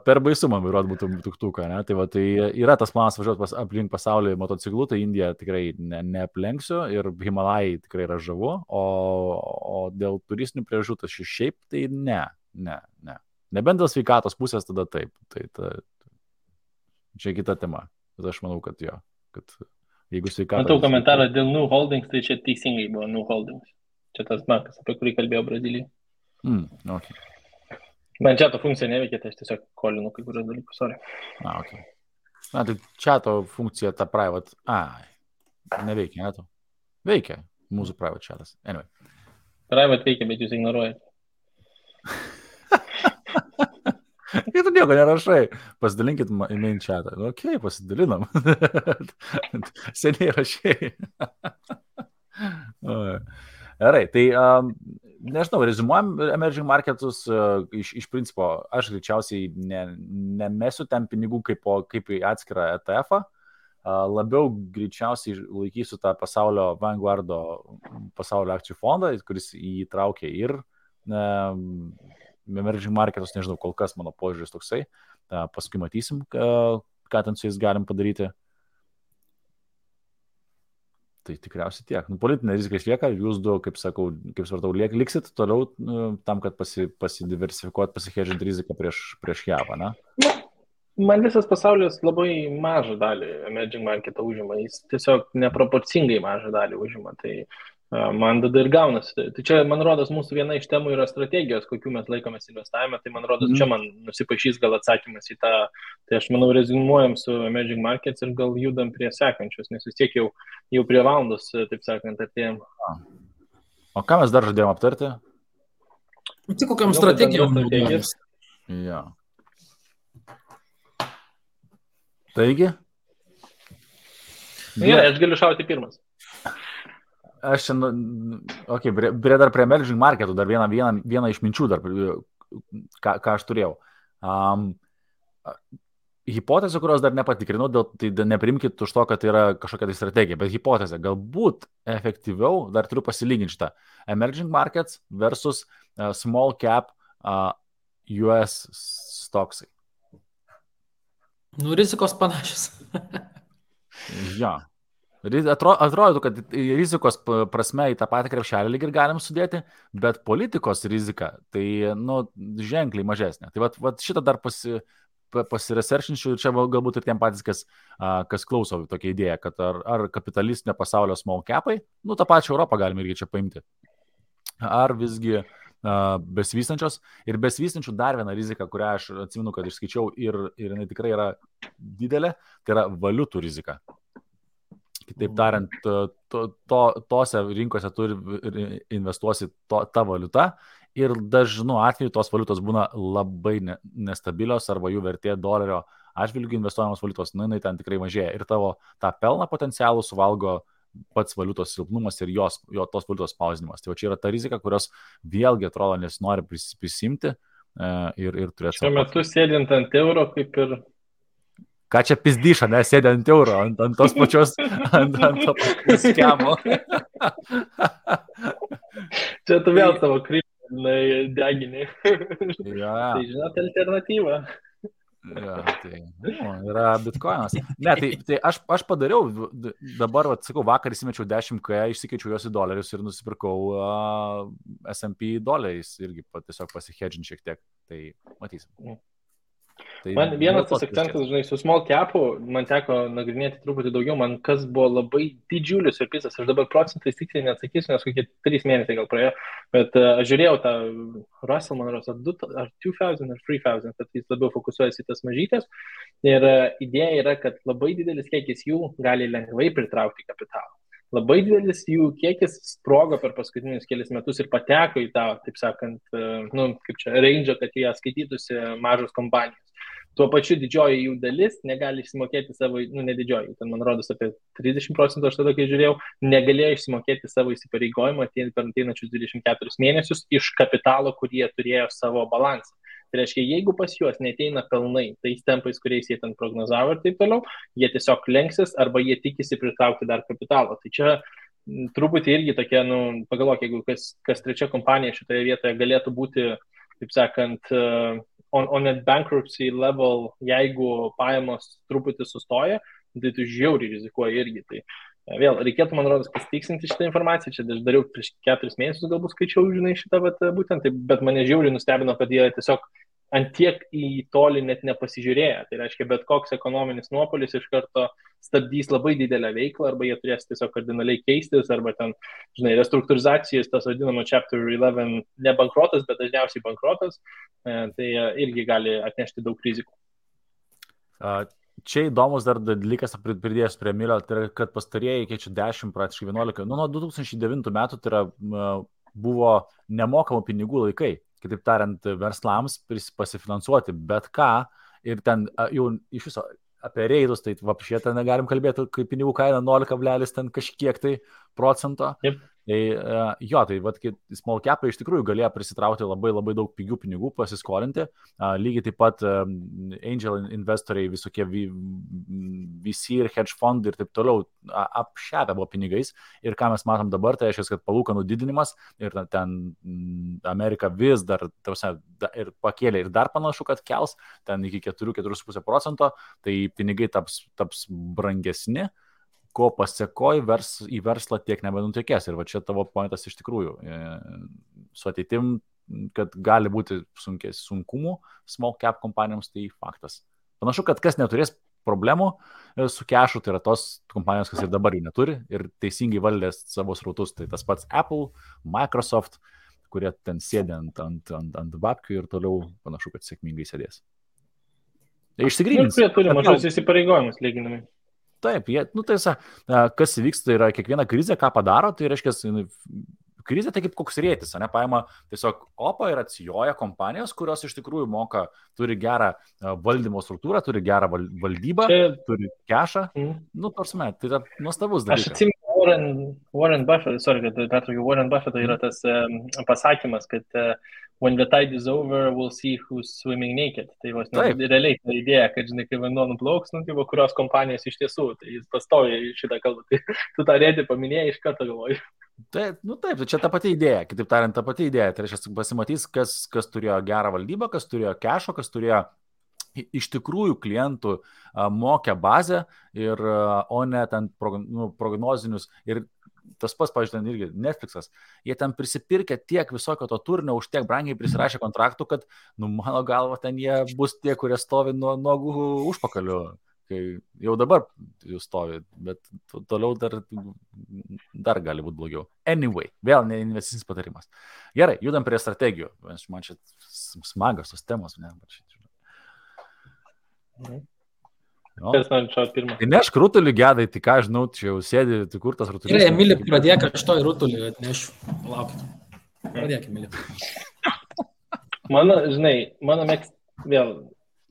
Per baisu man vairuoti būtų tuktuką, ne? Tai yra tas planas važiuoti aplink pasaulį motociklu, tai Indiją tikrai neaplenksiu ir Himalajai tikrai yra žavu, o dėl turistinių priežasčių tai šiaip tai ne. Nebent dėl sveikatos pusės tada taip. Čia kita tema. Bet aš manau, kad jo, kad jeigu sveikatos... Matau komentarą dėl New Holdings, tai čia teisingai buvo New Holdings. Čia tas bankas, apie kurį kalbėjo Brazilijai. Okay. Man čia to funkcija neveikia, tai aš tiesiog kolinu kai kurios dalykus, sorry. Okay. Tai čia to funkcija ta private... neveikia, ne to? Veikia mūsų private chatas. Anyway. Private veikia, bet jūs ignoruojate. Ir tu nieko nerašai. Pasidalinkit į main chatą. Okay, pasidalinam. Seniai rašai. Gerai, tai nežinau, rezumuojam emerging marketus iš principo, aš greičiausiai nemesiu ten pinigų kaip į atskirą ETF-ą, labiau greičiausiai laikysiu tą pasaulio Vanguardo pasaulio akcijų fondą, kuris įtraukia ir emerging marketus, nežinau, kol kas mano požiūris toksai, paskui matysim, ką ten su jais galim padaryti. Tai tikriausiai tiek. Politinė rizika išlieka, jūs du, kaip svartau, liksit toliau tam, kad pasidiversifikuot, pasihedžinti riziką prieš JAV, ne? Man visas pasaulis labai mažą dalį emerging marketą užima, jis tiesiog neproporcingai mažą dalį užima, tai man tada ir gaunasi. Tai čia, man rodos, mūsų viena iš temų yra strategijos, kokių mes laikomės investavime, tai man rodos, čia man nusipašys gal atsakymas į tą, tai aš manau, rezumuojam su emerging markets ir gal judam prie sekančios, nes vis tiek jau prie valandos, taip sakant, atėjom. O ką mes dar žadėjom aptarti? Tai kokiam strategijom naudojamės? Jo. Taigi? Gerai, aš galiu šauti pirmas. Aš čia, dar prie emerging marketų, dar vieną iš minčių, dar, ką aš turėjau. Hipotezė, kurios dar nepatikrinau, tai neprimkit už to, kad tai yra kažkokia tai strategija, bet hipotezė, galbūt efektyviau, dar turiu pasilyginti šitą, emerging markets versus small cap US stocksai. Rizikos panašios. Jo. Atrodo, kad rizikos prasme į tą patį krepšelį lyg ir galim sudėti, bet politikos rizika tai, ženkliai mažesnė. Tai vat šitą dar pasiresearchinčiau ir čia galbūt ir tiem patys, kas klauso tokia idėja, kad ar kapitalistinio pasaulio small capai, tą pačią Europą galime irgi čia paimti, ar visgi besivystančios. Ir besivystančių dar viena rizika, kurią aš atsimenu, kad išskaičiau ir jinai tikrai yra didelė, tai yra valiutų rizika. Kitaip tariant, tose rinkose turi investuosi tą valiutą ir dažnu atveju tos valiutos būna labai nestabilios arba jų vertė dolerio atžvilgių investuojamos valiutos, jinai ten tikrai mažėja ir tavo tą pelną potencialų suvalgo pats valiutos silpnumas ir tos valiutos spausdinimas. Tai čia yra ta rizika, kurios vėlgi atrodo nesinori prisimti ir turėti. Šiuo metu sėdint ant euro kaip ir... Ką čia pizdyša, nesėdė ant euro, ant tos pačios, ant to pačios skemo. Čia tu vėl savo kryptį deginį. Ja. Tai žinot, alternatyva. Ja, tai yra bitcoinas. Ne, tai aš padariau, dabar, sakau, vakar įsimečiau 10K, išsikeičiau juos į dolerius ir nusipirkau S&P doleriais irgi tiesiog pasihedžinti šiek tiek. Tai matysim. Tai man vienas tas akcentas, žinai, su small capu, man teko nagrinėti truputį daugiau, man kas buvo labai didžiulis surprizas, aš dabar procentais tiksliai neatsakysiu, nes kokie 3 mėnesiai gal praėjo, bet aš žiūrėjau tą Russell, man rodos, ar 2000 ar 3000, kad jis labiau fokusuojasi į tas mažytės ir idėja yra, kad labai didelis kiekis jų gali lengvai pritraukti kapitalą. Labai didelis jų kiekis sprogo per paskutinius kelius metus ir pateko į tą, taip sakant, kaip čia, range, kad jie skaitytųsi mažos kompanijos. Tuo pačiu didžioji jų dalis negali išsimokėti savo, ne didžioji, ten man rodos apie 30%, aš tada, kai žiūrėjau, negalėjo išsimokėti savo įsipareigojimą per ateinančius 24 mėnesius iš kapitalo, kurį jie turėjo savo balansą. Tai reiškia, jeigu pas juos neteina pelnai tais tempais, kuriais jie ten prognozavo ir taip toliau, jie tiesiog lenksis arba jie tikisi pritraukti dar kapitalo. Tai čia truputį irgi tokia, pagalvok, jeigu kas trečia kompanija šitoje vietoje galėtų būti, taip sakant, on a bankruptcy level, jeigu pajamos truputį sustoja, tai tu žiauriai rizikuoji irgi. Tai vėl, reikėtų, man rodos, pasitikslinti šitą informaciją. Čia aš dariau prieš 4 mėnesius, galbūt skaičiau, žinai, šitą, būtent, bet mane žiauriai nustebino, kad jie tiesiog antiek į tolį net nepasižiūrėję. Tai reiškia, bet koks ekonominis nuopolis iš karto stabdys labai didelę veiklą, arba jie turės tiesiog kardinaliai keistis, arba ten, žinai, restruktūrizacijos, tas vadinamo Chapter 11, ne bankrotas, bet dažniausiai bankrotas, tai irgi gali atnešti daug rizikų. Čia įdomus dar dalykas pridėjęs prie Milio, tai yra, kad pastarieji keičia 10, praktiškai 11, nuo 2009 metų tai yra, buvo nemokamų pinigų laikai. Kitaip tariant, verslams pasifinansuoti bet ką ir ten jau iš viso apie reidus, tai vapšė ten negalim kalbėti, kai pinigų kaina 0, ten kažkiek tai procento. Yep. Tai jo, tai small capai iš tikrųjų galėjo prisitraukti labai labai daug pigių pinigų, pasiskolinti. Lygiai taip pat angel investoriai, visokie VC ir hedge fondai ir taip toliau apšepę buvo pinigais. Ir ką mes matom dabar, tai reiškia, kad palūkanų didinimas ir ten Amerika vis dar ir pakėlė ir dar panašu, kad kels ten iki 4,5%, tai pinigai taps brangesni, ko pasiekoji į verslą tiek nebenutekės. Ir va čia tavo pointas iš tikrųjų su ateitim, kad gali būti sunkumų small cap kompanijoms, tai faktas. Panašu, kad kas neturės problemų su kešu, tai yra tos kompanijos, kas ir dabar jų neturi ir teisingai valdės savo srautus. Tai tas pats Apple, Microsoft, kurie ten sėdė ant babkių ir toliau panašu, kad sėkmingai sėdės. Tai išsigrynins. Kurie turi mažus įsipareigojimus lyginami. Taip, tai kas vyksta, yra kiekviena krizė, ką padaro, tai reiškia, krizė tai kaip koks rėtis, ne, paima tiesiog opą ir atsijoja kompanijos, kurios iš tikrųjų turi gerą valdymo struktūrą, turi gerą valdybą, turi kešą. Nu, tarsime, tai yra nuostabus dalykas. Aš atsimenu Warren Buffett, Warren Buffett yra tas pasakymas, kad when the tide is over, we'll see who's swimming naked. Tai realiai ta idėja, kad, žinai, kai vanduo nuplauks, kurios kompanijos iš tiesų, tai jis pastoja šitą kalbą. Tai tu tą rėdį paminėjai, iš karto galvoju. Taip, čia ta pati idėja, kitaip tariant, ta pati idėja. Tai reiškia, pasimatys, kas turėjo gerą valdybą, kas turėjo kešo, kas turėjo iš tikrųjų klientų mokę bazę, o ne ten prognozinius. Ir tas pats, pavyzdžiui, irgi Netflixas, jie ten prisipirkė tiek visokio to turinio, už tiek brangiai prisirašė kontraktų, kad, mano galva, ten jie bus tie, kurie stovi nuo nuogų užpakalių, kai jau dabar jūs stovi, bet toliau dar gali būti blogiau. Anyway, vėl ne investicinis patarimas. Gerai, judam prie strategijų. Man čia smagas tos temos, ne? Kas man čia pirmą? Tai nešk rutulį gedai, tai ką žinau, čia jau sėdi, tai kur tas rutulis? Gerai, Emilį, pradėk, aš to į rutulį atnešiu. Laukit. Pradėk, Emilį. Mano vėl,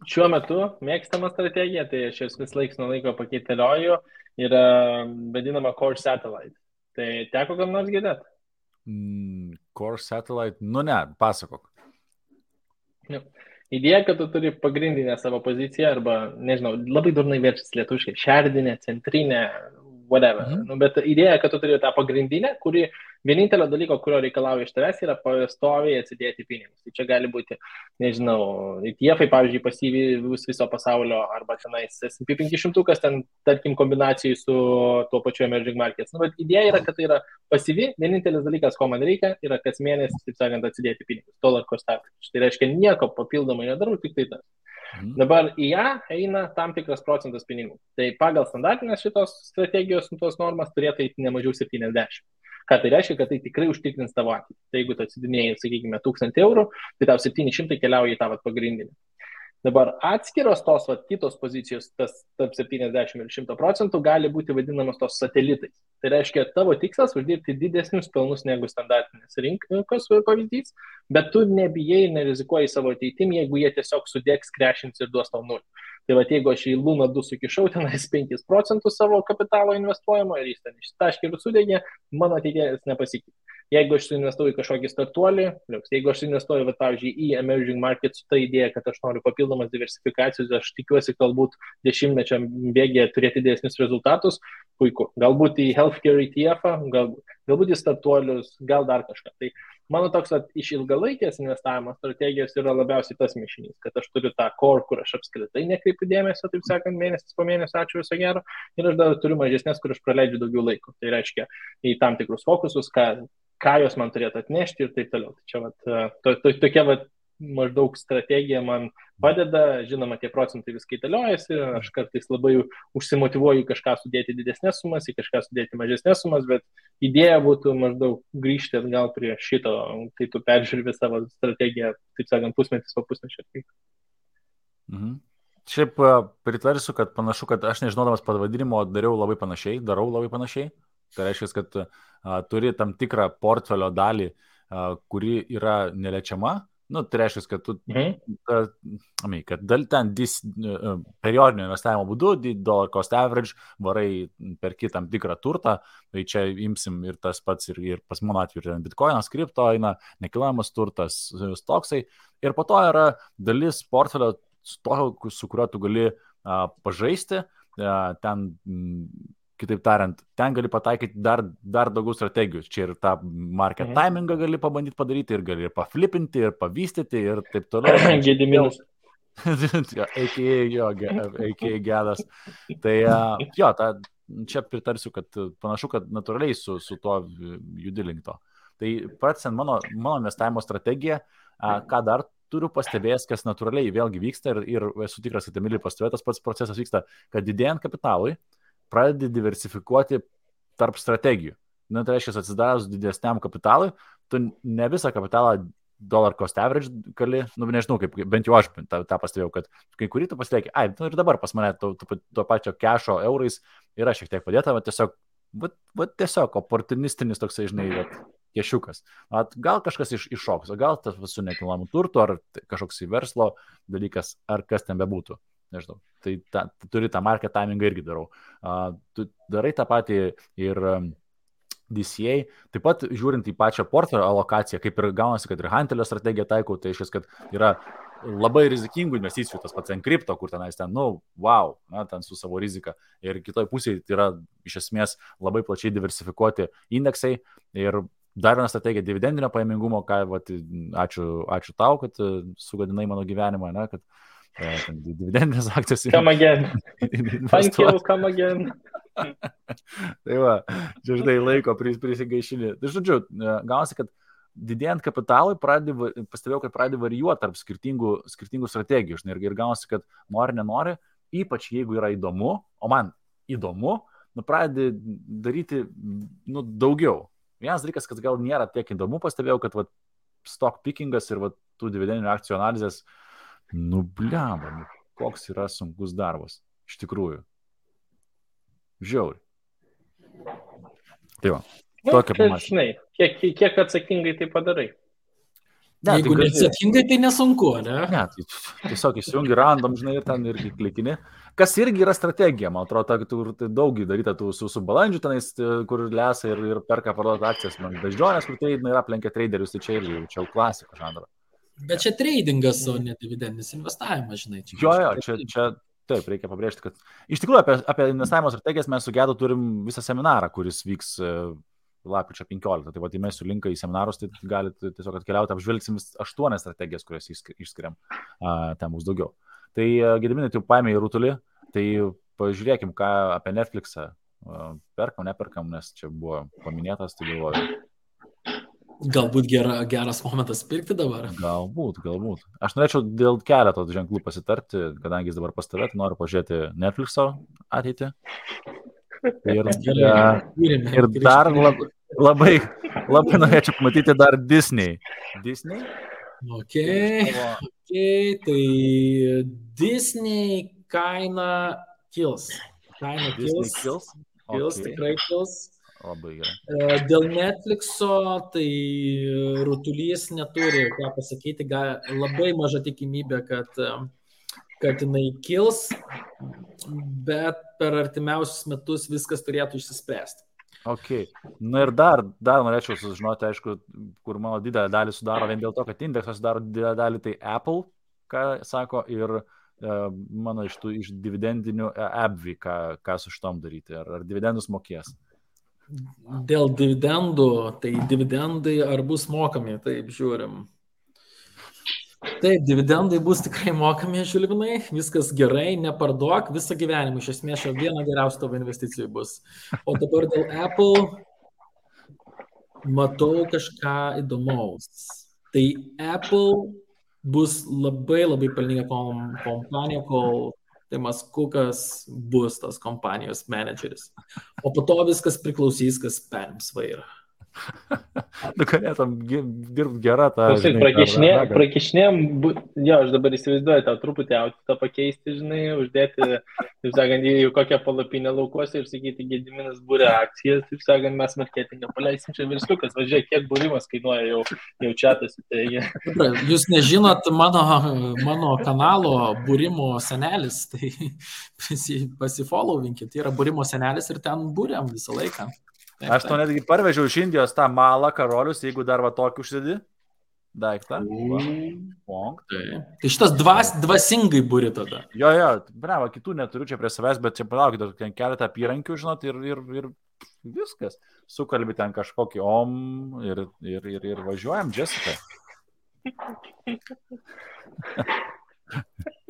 šiuo metu mėgstama strategija, tai aš vis laiks nuo laiko pakeitėlioju, yra vadinama Core Satellite. Tai teko kam nors girdėt? Core Satellite? Nu ne, pasakok. Idėja, kad tu turi pagrindinę savo poziciją arba, nežinau, labai durnai verčiasi lietuviškai, šerdinė, centrinė, whatever. Bet idėja, kad tu turi tą pagrindinę, kuri vienintelio dalyko, kurio reikalauja iš tavęs, yra pastoviai atsidėti pinigus. Tai čia gali būti, nežinau, ETF-ai, pavyzdžiui, pasyviai viso pasaulio arba tenais S&P 500, ten, tarkim, kombinacijai su tuo pačiu emerging markets. Bet idėja yra, kad tai yra pasyvi, vienintelis dalykas, ko man reikia, yra kas mėnesį, taip sakant, atsidėti pinigus. Dollar cost average. Tai reiškia, nieko papildomai nedarau, tik tai tas. Dabar į ją eina tam tikras procentas pinigų. Tai pagal standartinės šitos strategijos tos normas turėtų eiti ne mažiau 70. Ką tai reiškia, kad tai tikrai užtikrins tavo ateitį. Tai jeigu tu atsidinėjai, sakykime, 1000 eurų, tai tau 700 keliauja į tavo pagrindinį. Dabar atskiros tos kitos pozicijos, tas tarp 70 ir 100% gali būti vadinamos tos satelitais. Tai reiškia, tavo tikslas uždirbti didesnius pelnus negu standartinės rinkos pavyzdys, bet tu nebijai ir nerizikuoji savo ateitim, jeigu jie tiesiog sudėks, krešins ir duos tau nulį. Tai jeigu aš į Luna 2 sukišau tenais 5% savo kapitalo investuojamo ir jis ten ištaškė ir sudėgė, mano ateities nepasikeitė. Jeigu aš suinvestuoju į kažkokį startuolį, jeigu aš suinvestuoju, pavyzdžiui, į emerging market su ta idėja, kad aš noriu papildomas diversifikacijos, aš tikiuosi galbūt 10-mečio bėgėje turėti didesnius rezultatus, puiku. Galbūt į healthcare ETF-ą, galbūt į startuolius, gal dar kažką. Tai mano toks iš ilgalaikės investavimo strategijos yra labiausiai tas mišinys, kad aš turiu tą core, kur aš apskritai nekreipiu dėmesio, taip sakant, mėnesis po mėnesio, ačiū viso gero, ir aš dar turiu mažesnės, kur aš praleidžiu daugiau laiko. Tai reiškia į tam tikrus fokusus, ką jos man turėtų atnešti ir taip toliau. Tai čia tokia maždaug strategija man padeda, žinoma, tie procentai vis kaitaliojasi, aš kartais labai užsimotyvuoju kažką sudėti didesnės sumas, į kažką sudėti mažesnės sumas, bet idėja būtų maždaug grįžti atgal prie šito, kai tu peržiūri savo strategiją, taip sakant, pusmetis po pusmečio. Šiaip pritarsiu, kad panašu, kad aš nežinodamas pavadinimo darau labai panašiai. Tai reiškia, kad turi tam tikrą portfelio dalį, kuri yra neliečiama. Tai reiškia, kad tu kad ten periodinio investavimo būdu, dollar cost average, varai perki tam tikrą turtą, tai čia imsim ir tas pats, ir pas mano atveju bitcoinas, kripto, nekilnojamas turtas, stoksai, ir po to yra dalis portfelio su kuriuo tu gali pažaisti, ten, kitaip tariant, ten gali pataikyti dar daugiau strategijų. Čia ir tą market timingą gali pabandyti padaryti, ir gali ir paflipinti, ir pavystyti, ir taip toliau. Gediminas. A.k.a. gedas. Tai čia pritarsiu, kad panašu, kad natūraliai su tuo judi link to. Tai pratęsiant mano investavimo strategiją, ką dar turiu pastebėjęs, kas natūraliai vėlgi vyksta, ir esu tikras, kad Emilį pastebėjo, tas pats procesas vyksta, kad didėjant kapitalui, pradedi diversifikuoti tarp strategijų. Tai reiškia, atsidarus didesniam kapitalui, tu ne visą kapitalą dollar cost average gali, nežinau, kaip, bent jau aš tą pastebėjau, kad kai kurį tu pasilieki, ir dabar pas mane to pačio kešo eurais yra šiek tiek padėta, tiesiog oportunistinis toksai, žinai, kešiukas. Gal kažkas iššoks, o gal tas su nekilnojamu turtu, ar kažkoks į verslo dalykas, ar kas ten bebūtų. Nežinau. Tai turi tą market timingą irgi darau. Tu darai tą patį ir DCA, taip pat žiūrint į pačią portfelio alokaciją, kaip ir gaunasi, kad ir Hantelio strategiją taikau, tai išės, kad yra labai rizikingų investicijų, tas pats Encrypto, kur tenais ten, wow, ten su savo rizika. Ir kitoj pusėje tai yra iš esmės labai plačiai diversifikuoti indeksai. Ir dar viena strategija dividendinio pajamingumo, ačiū tau, kad sugadinai mano gyvenimą, ne, kad dividendinės akcijos. Come again. Thank you, come again. Tai va, čia žinai laiko prisigaišinį. Tai žodžiu, gaunasi, kad didėjant kapitalui, pastebėjau, kad pradėjo varijuoti tarp skirtingų strategijų. Žinai, ir gaunasi, kad nenori, ypač jeigu yra įdomu, o man įdomu, pradedi daryti daugiau. Vienas dalykas, kad gal nėra tiek įdomu, pastebėjau, kad stock pickingas ir tų dividendinių akcijų analizės, blemba, koks yra sunkus darbas. Iš tikrųjų. Žiauri. Tai va. Tokia panašiai. Kiek atsakingai tai padarai? Ne, jeigu neatsakingai, tai nesunku, ne? Ne, tai tiesiog įsijungi random, žinai, ir ten irgi klikini. Kas irgi yra strategija, man atrodo, tai daug daryta su balandžiu tenais, kur lesa ir perka parduoti akcijas. Man beždžionės, kur tai yra aplenkia traderius, tai čia irgi jau klasika žanro. Bet čia tradingas, o ne dividendinis investavimas, žinai. Čia taip, reikia pabrėžti, kad iš tikrųjų apie investavimo strategijas mes su Gedu turim visą seminarą, kuris vyks lapkričio 15. Tai įmesiu linką į seminarus, tai galite tiesiog atkeliauti, apžvelgsim 8 strategijas, kurias išskiriam, ten bus daugiau. Tai Gediminai, tai paėmė į rutulį, tai pažiūrėkim, ką apie Netflixą perkam, neperkam, nes čia buvo paminėtas, tai galvoju. Galbūt geras momentas pirkti dabar. Galbūt. Aš norėčiau dėl keleto ženklų pasitarti, kadangi jis dabar pas tave, tai noriu pažiūrėti Netflix'o ateitį. Ir dar labai norėčiau pamatyti dar Disney. Disney? Okay, tai Disney kaina kils. Tikrai kils. Labai gerai. Dėl Netflixo, tai rutulys neturi ką pasakyti, labai maža tikimybė, kad jinai kils, bet per artimiausius metus viskas turėtų išsispręsti. Ok. Na ir dar norėčiau sužinoti, aišku, kur mano didelę dalį sudaro, vien dėl to, kad indeksas sudaro didelę dalį, tai Apple, ką sako, ir mano iš dividendinių AbbVie, ką su šitom daryti, ar dividendus mokės. Dėl dividendų, tai dividendai ar bus mokami, taip žiūrim. Taip, dividendai bus tikrai mokami, Žilvinai, viskas gerai, neparduok visą gyvenimą, iš esmės viena geriausia tavo investicijų bus. O dabar dėl Apple matau kažką įdomaus. Tai Apple bus labai pelninga kompanija, kol Timas Kukas bus tas kompanijos menedžeris. O po to viskas priklausys, kas perims vairą. Galėtum dirbti gerą tą... Prakišnėm, jo, aš dabar įsivaizduoju, tau truputį autfitą pakeisti, žinai, uždėti, taip sakant, į kokią palapinę laukuose ir sakyti, Gediminas būrė akcijas, taip sakant, mes marketingą paleisim čia versliukas, važiuoja, kiek būrimas kainuoja jau čiatas. Jūs nežinot mano kanalo būrimo senelis, tai pasifollowinkit, tai yra būrimo senelis ir ten būriam visą laiką. Aš to netgi parvežiau iš Indijos tą malą karolius, jeigu dar tokį užsidį daiktą. Tai šitas dvasingai būri tada. Jo, bravo, kitų neturiu čia prie savęs, bet čia palaukite, ten keletą apyrankių, žinot, ir viskas. Sukalbi ten kažkokį ir važiuojam, Jessica.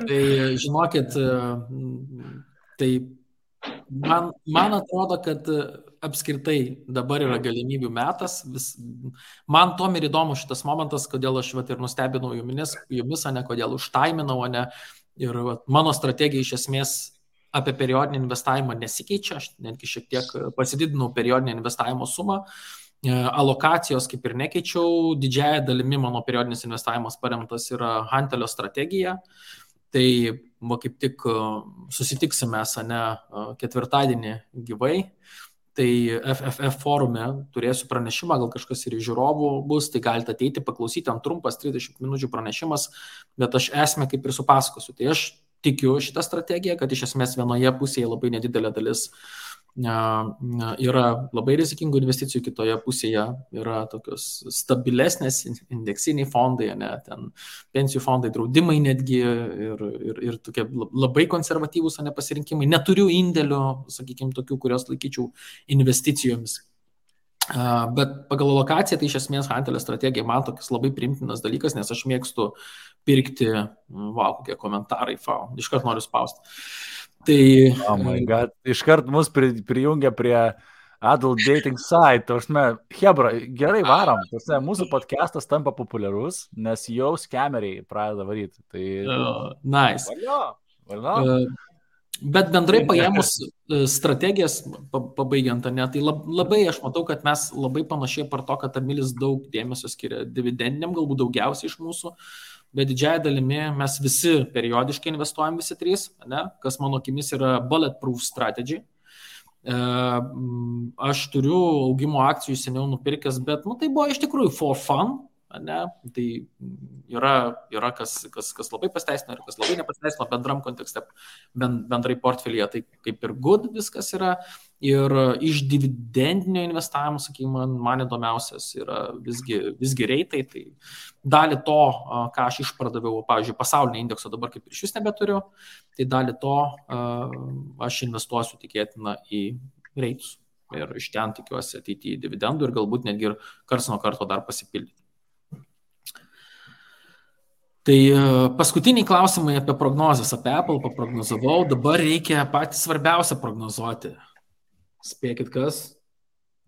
Tai žinokit, tai man atrodo, kad apskritai dabar yra galimybių metas. Man tom ir įdomu šitas momentas, kodėl aš ir nustebinau jumis, ne kodėl užtaiminau, ne. Ir mano strategija iš esmės apie periodinį investavimą nesikeičia. Aš netgi šiek tiek pasididinau periodinį investavimo sumą. Alokacijos kaip ir nekeičiau. Didžiąją dalimi mano periodinis investavimas paremtas yra Hantelio strategija. Tai kaip tik susitiksime ketvirtadienį gyvai. Tai FFF forume turėsiu pranešimą, gal kažkas ir iš žiūrovų bus, tai galite ateiti, paklausyti, ant trumpas 30 minučių pranešimas, bet aš esmę kaip ir supasakosiu. Tai aš tikiu šitą strategiją, kad iš esmės vienoje pusėje labai nedidelė dalis yra labai rizikingų investicijų, kitoje pusėje yra tokios stabilesnės indeksiniai fondai, ne, ten pensijų fondai, draudimai netgi ir tokie labai konservatyvūs pasirinkimai. Neturiu indėlių, sakykime, tokių, kurios laikyčiau investicijomis. Bet pagal lokaciją tai iš esmės Hantelio strategija man toks labai primtinas dalykas, nes aš mėgstu pirkti, kokie komentarai, iškart noriu spausti. Tai, oh my God, iškart mus prijungia prie adult dating site. Hebra, gerai varom. Mūsų podcastas tampa populiarus, nes jau skemeriai pradeda varyti. Tai... Nice. Valio. Bet bendrai paėmus strategijas, pabaigiant, ne, tai labai aš matau, kad mes labai panašiai par to, kad Emilis daug dėmesio skiria dividendiniam, galbūt daugiausiai iš mūsų, bet didžiąją dalimi mes visi periodiškai investuojam, visi trys, ne, kas mano akimis yra bulletproof strategy. Aš turiu augimo akcijų seniau nupirkęs, bet tai buvo iš tikrųjų for fun. Ne? Tai yra kas labai pasteisino ir kas labai nepasteisino bendram kontekste, bendrai portfelyje, tai kaip ir good viskas yra. Ir iš dividendinio investavimo, sakykime, man įdomiausias yra visgi reitai. Tai dalį to, ką aš išpardaviau, pavyzdžiui, pasaulinio indekso dabar kaip ir iš vis nebeturiu, tai dalį to aš investuosiu tikėtina į reitus. Ir iš ten tikiuosi ateiti į dividendų ir galbūt netgi ir karts nuo karto dar pasipildyti. Tai paskutiniai klausimai apie prognozes, apie Apple paprognozavau, dabar reikia patį svarbiausią prognozuoti. Spėkit kas?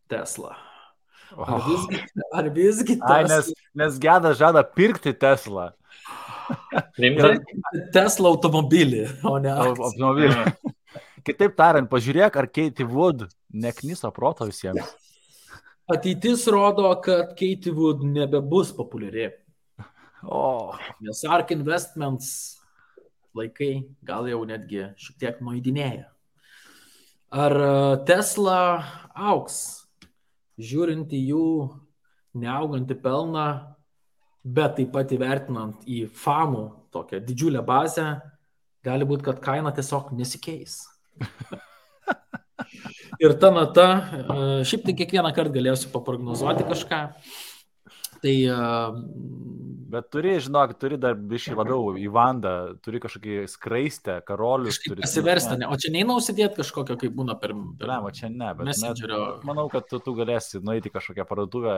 Tesla. Ar visgi Tesla? Nes Geda žada pirkti Tesla. Tesla automobilį, o ne automobilį. Kitaip tariant, pažiūrėk, ar Katie Wood nekniso proto visiems. Ateitis rodo, kad Katie Wood nebebus populiari. Nes ARK Investments laikai gal jau netgi šiek tiek nueidinėja. Ar Tesla auks, žiūrint į jų neaugantį pelną, bet taip pat įvertinant į fanų tokią didžiulę bazę, gali būti, kad kaina tiesiog nesikeis. Ir ta nata, šiaip tai kiekvieną kartą galėsiu paprognozuoti kažką. Tai, bet turi dar biškai labiau į vandą, turi kažkokį skraistę, karolius. Pasiversti, o čia neina užsidėti kažkokio, kaip būna per čia ne, bet Messengerio. Manau, kad tu galėsi nueiti kažkokią parduotuvę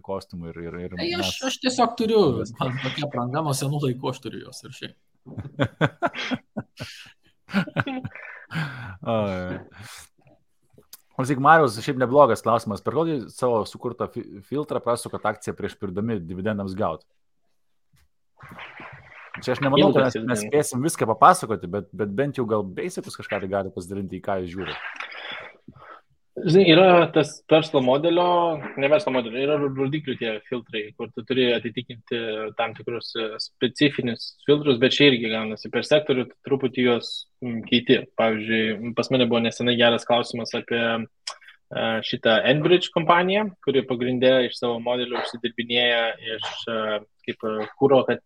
kostiumų ir aš tiesiog turiu, man tokia pranga, nuo senų laikų aš turiu jos ir šiaip. Klausyk, Marius, šiaip neblogas klausimas. Per kokį savo sukurtą filtrą prasukat akciją prieš pirdami dividendams gauti? Čia aš nemanau, kad mes spėsim viską papasakoti, bet bent jau gal basicus kažką tai gali pasidalinti, į ką jūs žiūrite. Žinai, yra tas verslo modelio, ne verslo modelio, yra rodiklių tie filtrai, kur tu turi atitikinti tam tikrus specifinius filtrus, bet čia irgi gaunasi per sektorių, truputį juos keiti. Pavyzdžiui, pas mane buvo nesenai geras klausimas apie šitą Enbridge kompaniją, kuri pagrindė iš savo modelio užsidirbinėja iš kaip kūro, kad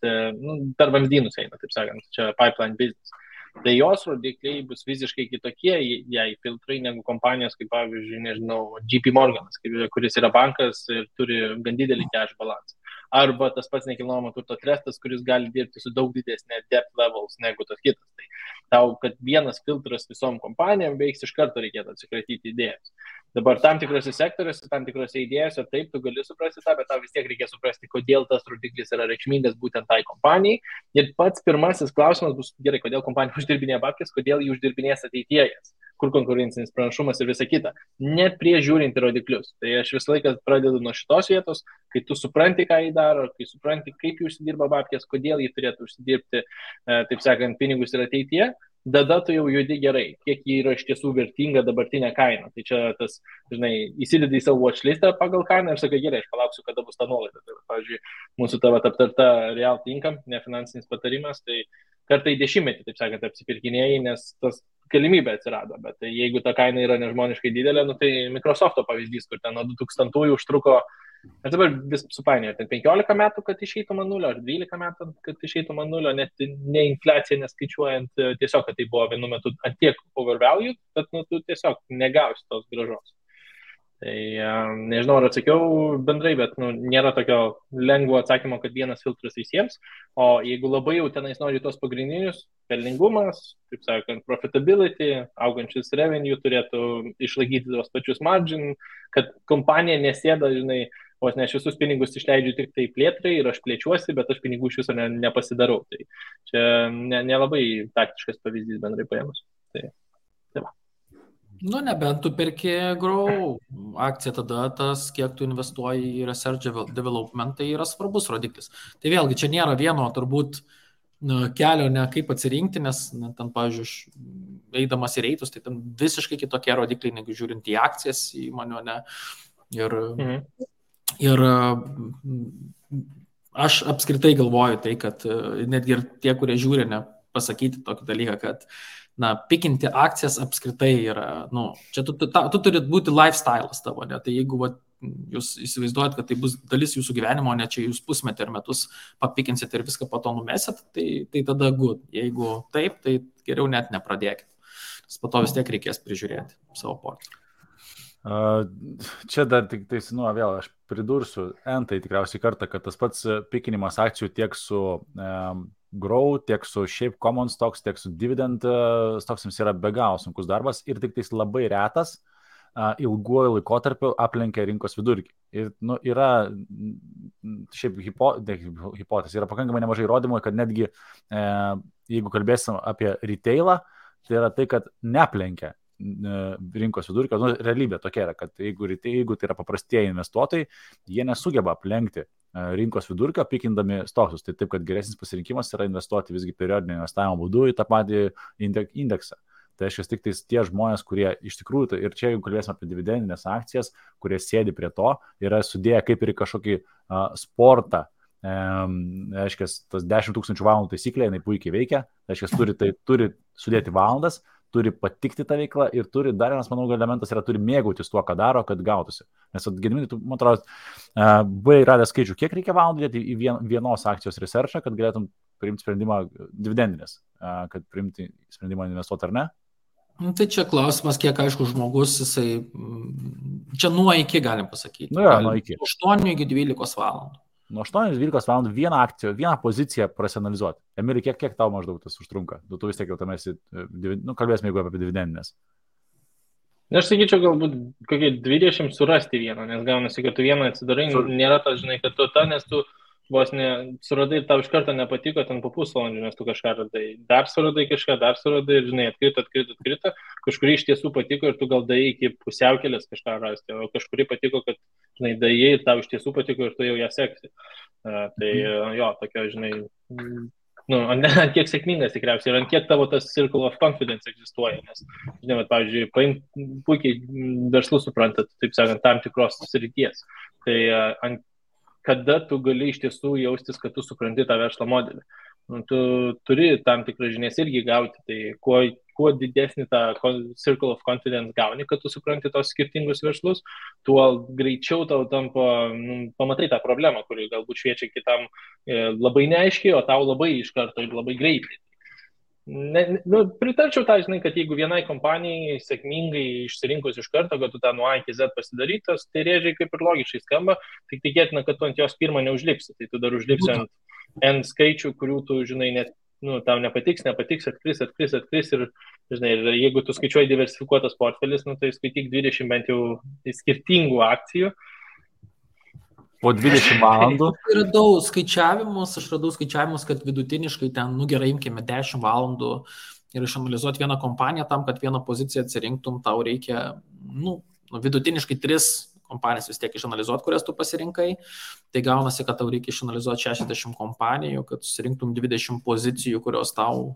per vamzdynus eina, taip sakant, čia pipeline business. Tai jos rodikliai bus visiškai kitokie, jei filtrai, negu kompanijos, kaip pavyzdžiui, nežinau, JP Morganas, kuris yra bankas ir turi gan didelį cash balansą. Arba tas pats nekilnojamo turto trustas, kuris gali dirbti su daug didesnė depth levels negu tas kitas. Tai tau, kad vienas filtras visom kompanijom veiks, iš karto reikėtų atsikratyti idėjas. Dabar tam tikrose sektoriuose, tam tikrose idėjose, taip, tu gali suprasti tą, bet tau vis tiek reikia suprasti, kodėl tas rodiklis yra reikšmingas būtent tai kompanijai. Ir pats pirmasis klausimas bus, gerai, kodėl kompanija uždirbinėja babkes, kodėl jį uždirbinės ateityjas, kur konkurencinis pranašumas ir visa kita. Net prieš žiūrint į rodiklius. Tai aš visą laiką pradedu nuo šitos vietos, kai tu supranti, ką jį daro, kai supranti, kaip jį užsidirba babkes, kodėl jį turėtų užsidirbti, taip sakant, pinigus ir ateityje. Tada tu jau judi gerai, kiek jį yra iš tiesų vertinga dabartinė kaina. Tai čia tas, žinai, įsidedi į savo watchlistą pagal kainą ir sakai, gerai, aš palauksiu, kada bus ta nuolaida. Tai, pavyzdžiui, mūsų tavo aptarta realty income, nefinansinis patarimas, tai kartą į 10, taip sakant, apsipirkinėjai, nes tas galimybė atsirado, bet jeigu ta kaina yra nežmoniškai didelė, nu, tai Microsoft'o pavyzdys, kur ten nuo 2000-ųjų užtruko, aš dabar vis supainioju, ten 15 metų, kad išeitų man nulio, ar 12 metų, kad išeitų man nulio, net ne infliacija neskaičiuojant, tiesiog, kad tai buvo vienu metu ant tiek overvalued, bet nu, tu tiesiog negausi tos grąžos. Tai nežinau, ar atsakiau bendrai, bet nu, nėra tokio lengvo atsakymo, kad vienas filtras visiems, o jeigu labai jau tenais nori tos pagrindinius, pelningumas, taip sakant, profitability, augančius revenue turėtų išlaikyti tos pačius margin, kad kompanija nesėda, žinai, vos ne aš visus pinigus išleidžiu tik tai plėtrai ir aš plėčiuosi, bet aš pinigų iš viso nepasidarau. Tai čia nelabai taktiškas pavyzdys bendrai paėmus. Tai va. Nu, nebent tu perki Grow akciją, tada tas, kiek tu investuoji į research development, tai yra svarbus rodiklis. Tai vėlgi, čia nėra vieno turbūt kelio, ne kaip atsirinkti, nes ten, pavyzdžiui, eidamas į reitus, tai ten visiškai kitokie rodikliai, negu žiūrint į akcijas įmonių, ne. Ir aš apskritai galvoju tai, kad netgi ir tie, kurie žiūri, ne, pasakyti tokį dalyką, kad pikinti akcijas apskritai yra, čia tu turi būti lifestyle'as tavo, ne? Tai jeigu jūs įsivaizduojat, kad tai bus dalis jūsų gyvenimo, ne čia jūs pusmetį ir metus papikinsit ir viską po to numesit, tai tada good. Jeigu taip, tai geriau net nepradėkit. Nes po to vis tiek reikės prižiūrėti savo portfelį. Čia dar tik tai, vėl aš pridursiu entai tikriausiai kartą, kad tas pats pikinimas akcijų tiek su Grow, tiek su šiaip common stocks, tiek su dividend stocksams yra be galo sunkus darbas ir tik tais labai retas ilguoju laikotarpiu aplenkia rinkos vidurkį. Ir yra šiaip hipotezė, yra pakankamai nemažai įrodymų, kad netgi jeigu kalbėsim apie retailą, tai yra tai, kad neaplenkia rinkos vidurkio. Realybė tokia yra, kad jeigu tai yra paprastieji investuotojai, jie nesugeba aplenkti rinkos vidurkio, pikindami stoksus. Tai taip, kad geresnis pasirinkimas yra investuoti visgi periodinio investavimo būdu į tą patį indeksą. Tai reiškia tik tie žmonės, kurie iš tikrųjų, ir čia jeigu kalbėsime apie dividendinės akcijas, kurie sėdi prie to, yra sudėję kaip ir kažkokį sportą. Reiškia, tas 10 000 valandų taisyklė, jinai puikiai veikia. Reiškia, turi sudėti valandas, turi patikti tą veiklą ir turi, dar vienas, manau, elementas yra, turi mėgautis tuo, ką daro, kad gautųsi. Nes, Gediminai, tu, man atrodo, buvai radęs skaičių, kiek reikia valandų dėti į vienos akcijos researchą, kad galėtum priimti sprendimą dividendinės, kad priimti sprendimą investuoti ar ne? Tai čia klausimas, kiek aišku žmogus, jisai, čia nuo iki galim pasakyti. Nuo iki. 8 iki 12 valandų. Nuo 8-12 valandų vieną akciją, vieną poziciją prasianalizuoti. Emili, kiek tau maždaug tas užtrunka? Tu vis tiek jau tam esi, kalbėsime jeigu apie dividendinės. Aš sakyčiau, galbūt kokie 20 surasti vieną, nes gaunasi, kad tu vieną atsidarai, nėra tas, žinai, kad tu nes tu vos suradai, tau iš karto nepatiko, ten po pusvalandžių, nes tu kažką radai. Dar suradai kažką, ir, žinai, atkrito, kažkurį iš tiesų patiko ir tu gal daėjai iki pusiaukelės kažką rasti, o kažkurį patiko, kad, žinai, daėjai ir tau iš tiesų patiko ir tu jau ją seksi. Tai jo, tokia, žinai, ant kiek sėkmingas tikriausiai ir ant kiek tavo tas circle of confidence egzistuoja, nes, žinai, pavyzdžiui, puikiai verslus suprantat, taip sakant, tam tikros srities. Tai kada tu gali iš tiesų jaustis, kad tu supranti tą verslo modelį. Tu turi tam tikrą žinias irgi gauti, tai kuo didesnį tą circle of confidence gauni, kad tu supranti tos skirtingus verslus, tuo greičiau tau tampa, pamatai tą problemą, kuri galbūt šviečia kitam labai neaiškiai, o tau labai iš karto ir labai greitai. Pritarčiau tą, žinai, kad jeigu vienai kompanijai sėkmingai išsirinkus iš karto, kad tu tą nuo A iki Z pasidarytas, tai rėžiai kaip ir logiškai skamba, tik tikėtina, kad tu ant jos pirmą neužlipsi, tai tu dar užlipsi ant N skaičių, kurių tu, žinai, net, tau nepatiks, atkris ir, žinai, ir jeigu tu skaičiuoji diversifikuotas portfelis, tai skaityk 20 bent jau skirtingų akcijų. Po 20 valandų. Radau skaičiavimus, kad vidutiniškai ten, gerai, imkime 10 valandų ir išanalizuoti vieną kompaniją tam, kad vieną poziciją atsirinktum, tau reikia, vidutiniškai 3 kompanijas vis tiek išanalizuoti, kurias tu pasirinkai. Tai gaunasi, kad tau reikia išanalizuoti 60 kompanijų, kad susirinktum 20 pozicijų, kurios tau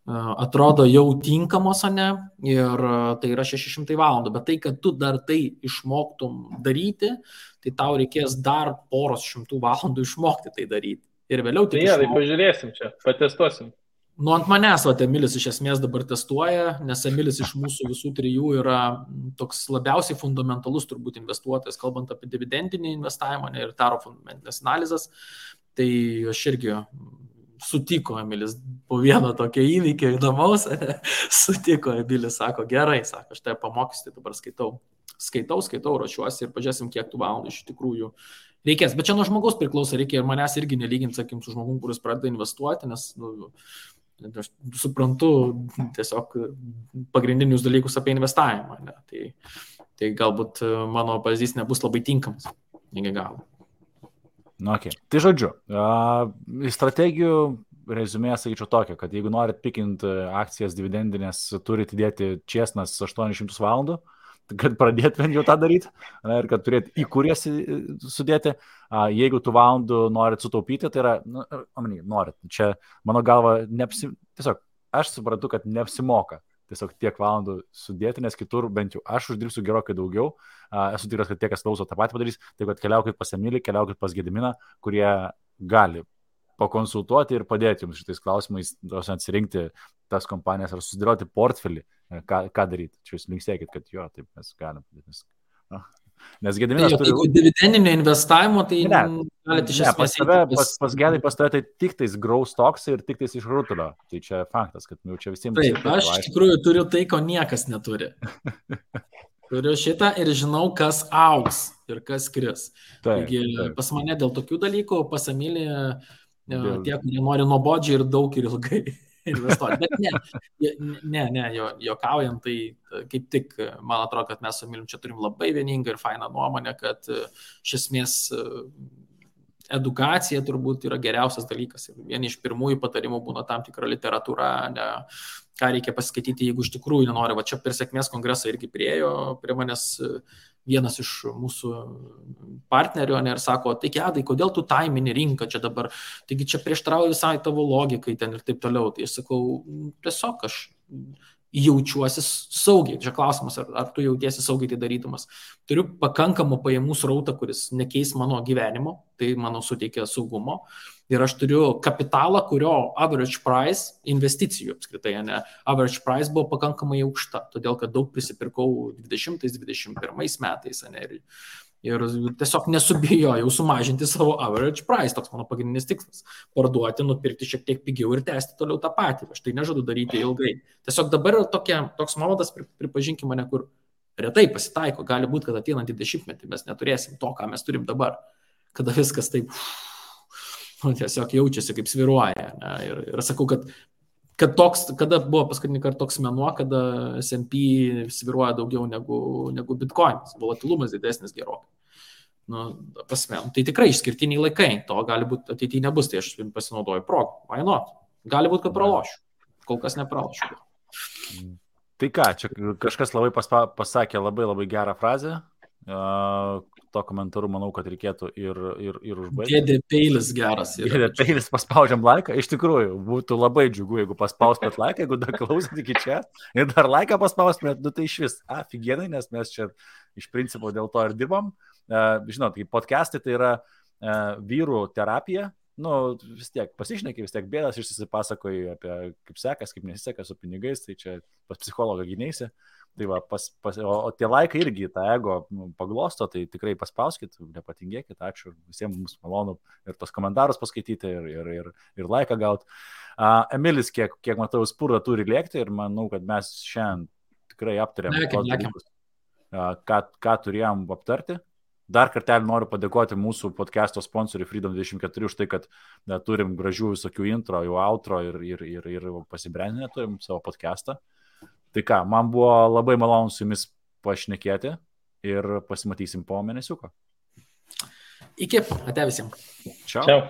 atrodo jau tinkamos, ne, ir tai yra 600 valandų, bet tai, kad tu dar tai išmoktum daryti, tai tau reikės dar poros šimtų valandų išmokti tai daryti. Ir vėliau tai pažiūrėsim čia, patestuosim. Nu, ant manęs, Emilis iš esmės dabar testuoja, nes Emilis iš mūsų visų trijų yra toks labiausiai fundamentalus turbūt investuotojas, kalbant apie dividendinį investavimą ir taro fundamentinės analizės. Tai aš irgi sutiko Emilis po vieno tokio įvykio įdomaus, sutiko Emilis, sako, gerai, sako, aš tai pamokysiu, tai dabar skaitau, ruošiuosi ir pažiūrėsim, kiek tų valandų iš tikrųjų reikės. Bet čia nuo žmogaus priklauso, reikia ir manęs irgi nelyginti, sakykim, su žmogum, kuris pradeda investuoti, nes aš suprantu tiesiog pagrindinius dalykus apie investavimą. Ne? Tai galbūt mano pavyzdys nebus labai tinkamas iki galo. Okay. Tai žodžiu, strategijų rezumė, sakyčiau tokia, kad jeigu norit pikinti akcijas dividendinės, turite įdėti česnas 800 valandų, kad pradėtumėt jau tą daryti ir kad turėt į kurės sudėti. Jeigu tų valandų norit sutaupyti, tai yra, norit. Čia, mano galva, tiesiog aš suprantu, kad neapsimoka tiesiog tiek valandų sudėti, nes kitur bent jau aš uždirbsiu gerokai daugiau. Esu tikras, kad tie, kas klauso, tą patį padarys. Tai kad keliaukit pas Emilį, keliaukit pas Gediminą, kurie gali pakonsultuoti ir padėti jums šitais klausimais, atsirinkti tas kompanijas ar susidėlioti portfelį, ką daryti. Čia jūs linksėkit, kad jo, taip mes galim. Nes Gediminas turi... Jeigu dividendinio investavimo, tai galite iš esmės... Pas Gedai pas tave tai tik tais growth stocks ir tik tais iš rutulio. Tai čia faktas, kad jau čia visiems... Taip, aš iš tikrųjų turiu tai, ko niekas neturi. Turiu šitą ir žinau, kas augs ir kas kris. Taigi pas mane dėl tokių dalykų, pas Emilį tie, kurie nori nuobodžiai ir daug ir ilgai investuoti. Bet ne, juokaujant, tai kaip tik, man atrodo, kad mes su Emilim čia turim labai vieningą ir fainą nuomonę, kad iš esmės edukacija turbūt yra geriausias dalykas. Ir vieni iš pirmųjų patarimų būna tam tikra literatūra, ką reikia pasiskaityti, jeigu iš tikrųjų nenori. Va čia per sėkmės kongresą irgi priėjo prie manęs vienas iš mūsų partnerių ir sako, tai Gedai, kodėl tu taimini rinką čia dabar, taigi čia prieštarauja visai tavo logikai ten ir taip toliau. Tai aš sakau, tiesiog aš jaučiuosi saugiai. Čia klausimas, ar tu jautiesi saugiai tai darydamas. Turiu pakankamą pajamų srautą, kuris nekeis mano gyvenimo, tai mano suteikia saugumo. Ir aš turiu kapitalą, kurio average price, investicijų apskritai, average price buvo pakankamai aukšta, todėl kad daug prisipirkau 20-21 metais. Ir tiesiog nesubijojau sumažinti savo average price, toks mano pagrindinis tikslas. Parduoti, nupirkti šiek tiek pigiau ir tęsti toliau tą patį. Aš tai nežadu daryti ilgai. Tiesiog dabar yra toks momentas, pripažinkime mane, kur retai pasitaiko. Gali būti, kad ateinantį 10-metį mes neturėsim to, ką mes turim dabar. Kada viskas taip tiesiog jaučiasi, kaip sviruoja. Ir sakau, kad toks, kada buvo paskutinį kartą toks mėnuo, kada S&P sviruoja daugiau negu Bitcoinas, volatilumas didesnis gerokai. Tai tikrai išskirtiniai laikai, to gali būti ateityje nebus, tai aš pasinaudoju progą. Why not? Gali būti, kad pralošiu. Kol kas nepralošiu. Tai ką, čia kažkas labai pasakė labai gerą frazę. To komentaru manau, kad reikėtų ir užbaigti. Dėdė peilis geras. Dėdė peilis paspaudžiam laiką. Iš tikrųjų, būtų labai džiugu, jeigu paspaustumėt laiką, jeigu dar klausot iki čia ir dar laiką paspaustumėt, tai iš vis aфиgenai, nes mes čia iš principo dėl to ir dirbam. Žinot, kaip podcastai tai yra vyrų terapija. Vis tiek pasišneki, vis tiek bėdas išsipasakoji apie kaip sekas, kaip nesiseka su pinigais, tai čia pas psichologą gyneisi. Tai va, o tie laikai irgi tą ego paglosto, tai tikrai paspauskit, nepatingėkit, ačiū, visiems mums malonu ir tos komentarus paskaityti ir laiką gauti. Emilis, kiek matau, spurda turi lėkti ir manau, kad mes šiandien tikrai aptarėm tos dalykus, ką turėjom aptarti. Dar kartelį noriu padėkoti mūsų podcast'o sponsoriui Freedom24 už tai, kad turim gražių visokių intro, jau outro ir pasibrandinę turim savo podcast'ą. Tai ką, man buvo labai malonu su jumis pašnekėti ir pasimatysim po mėnesiuko. Iki, ate visiems. Ciao. Ciao.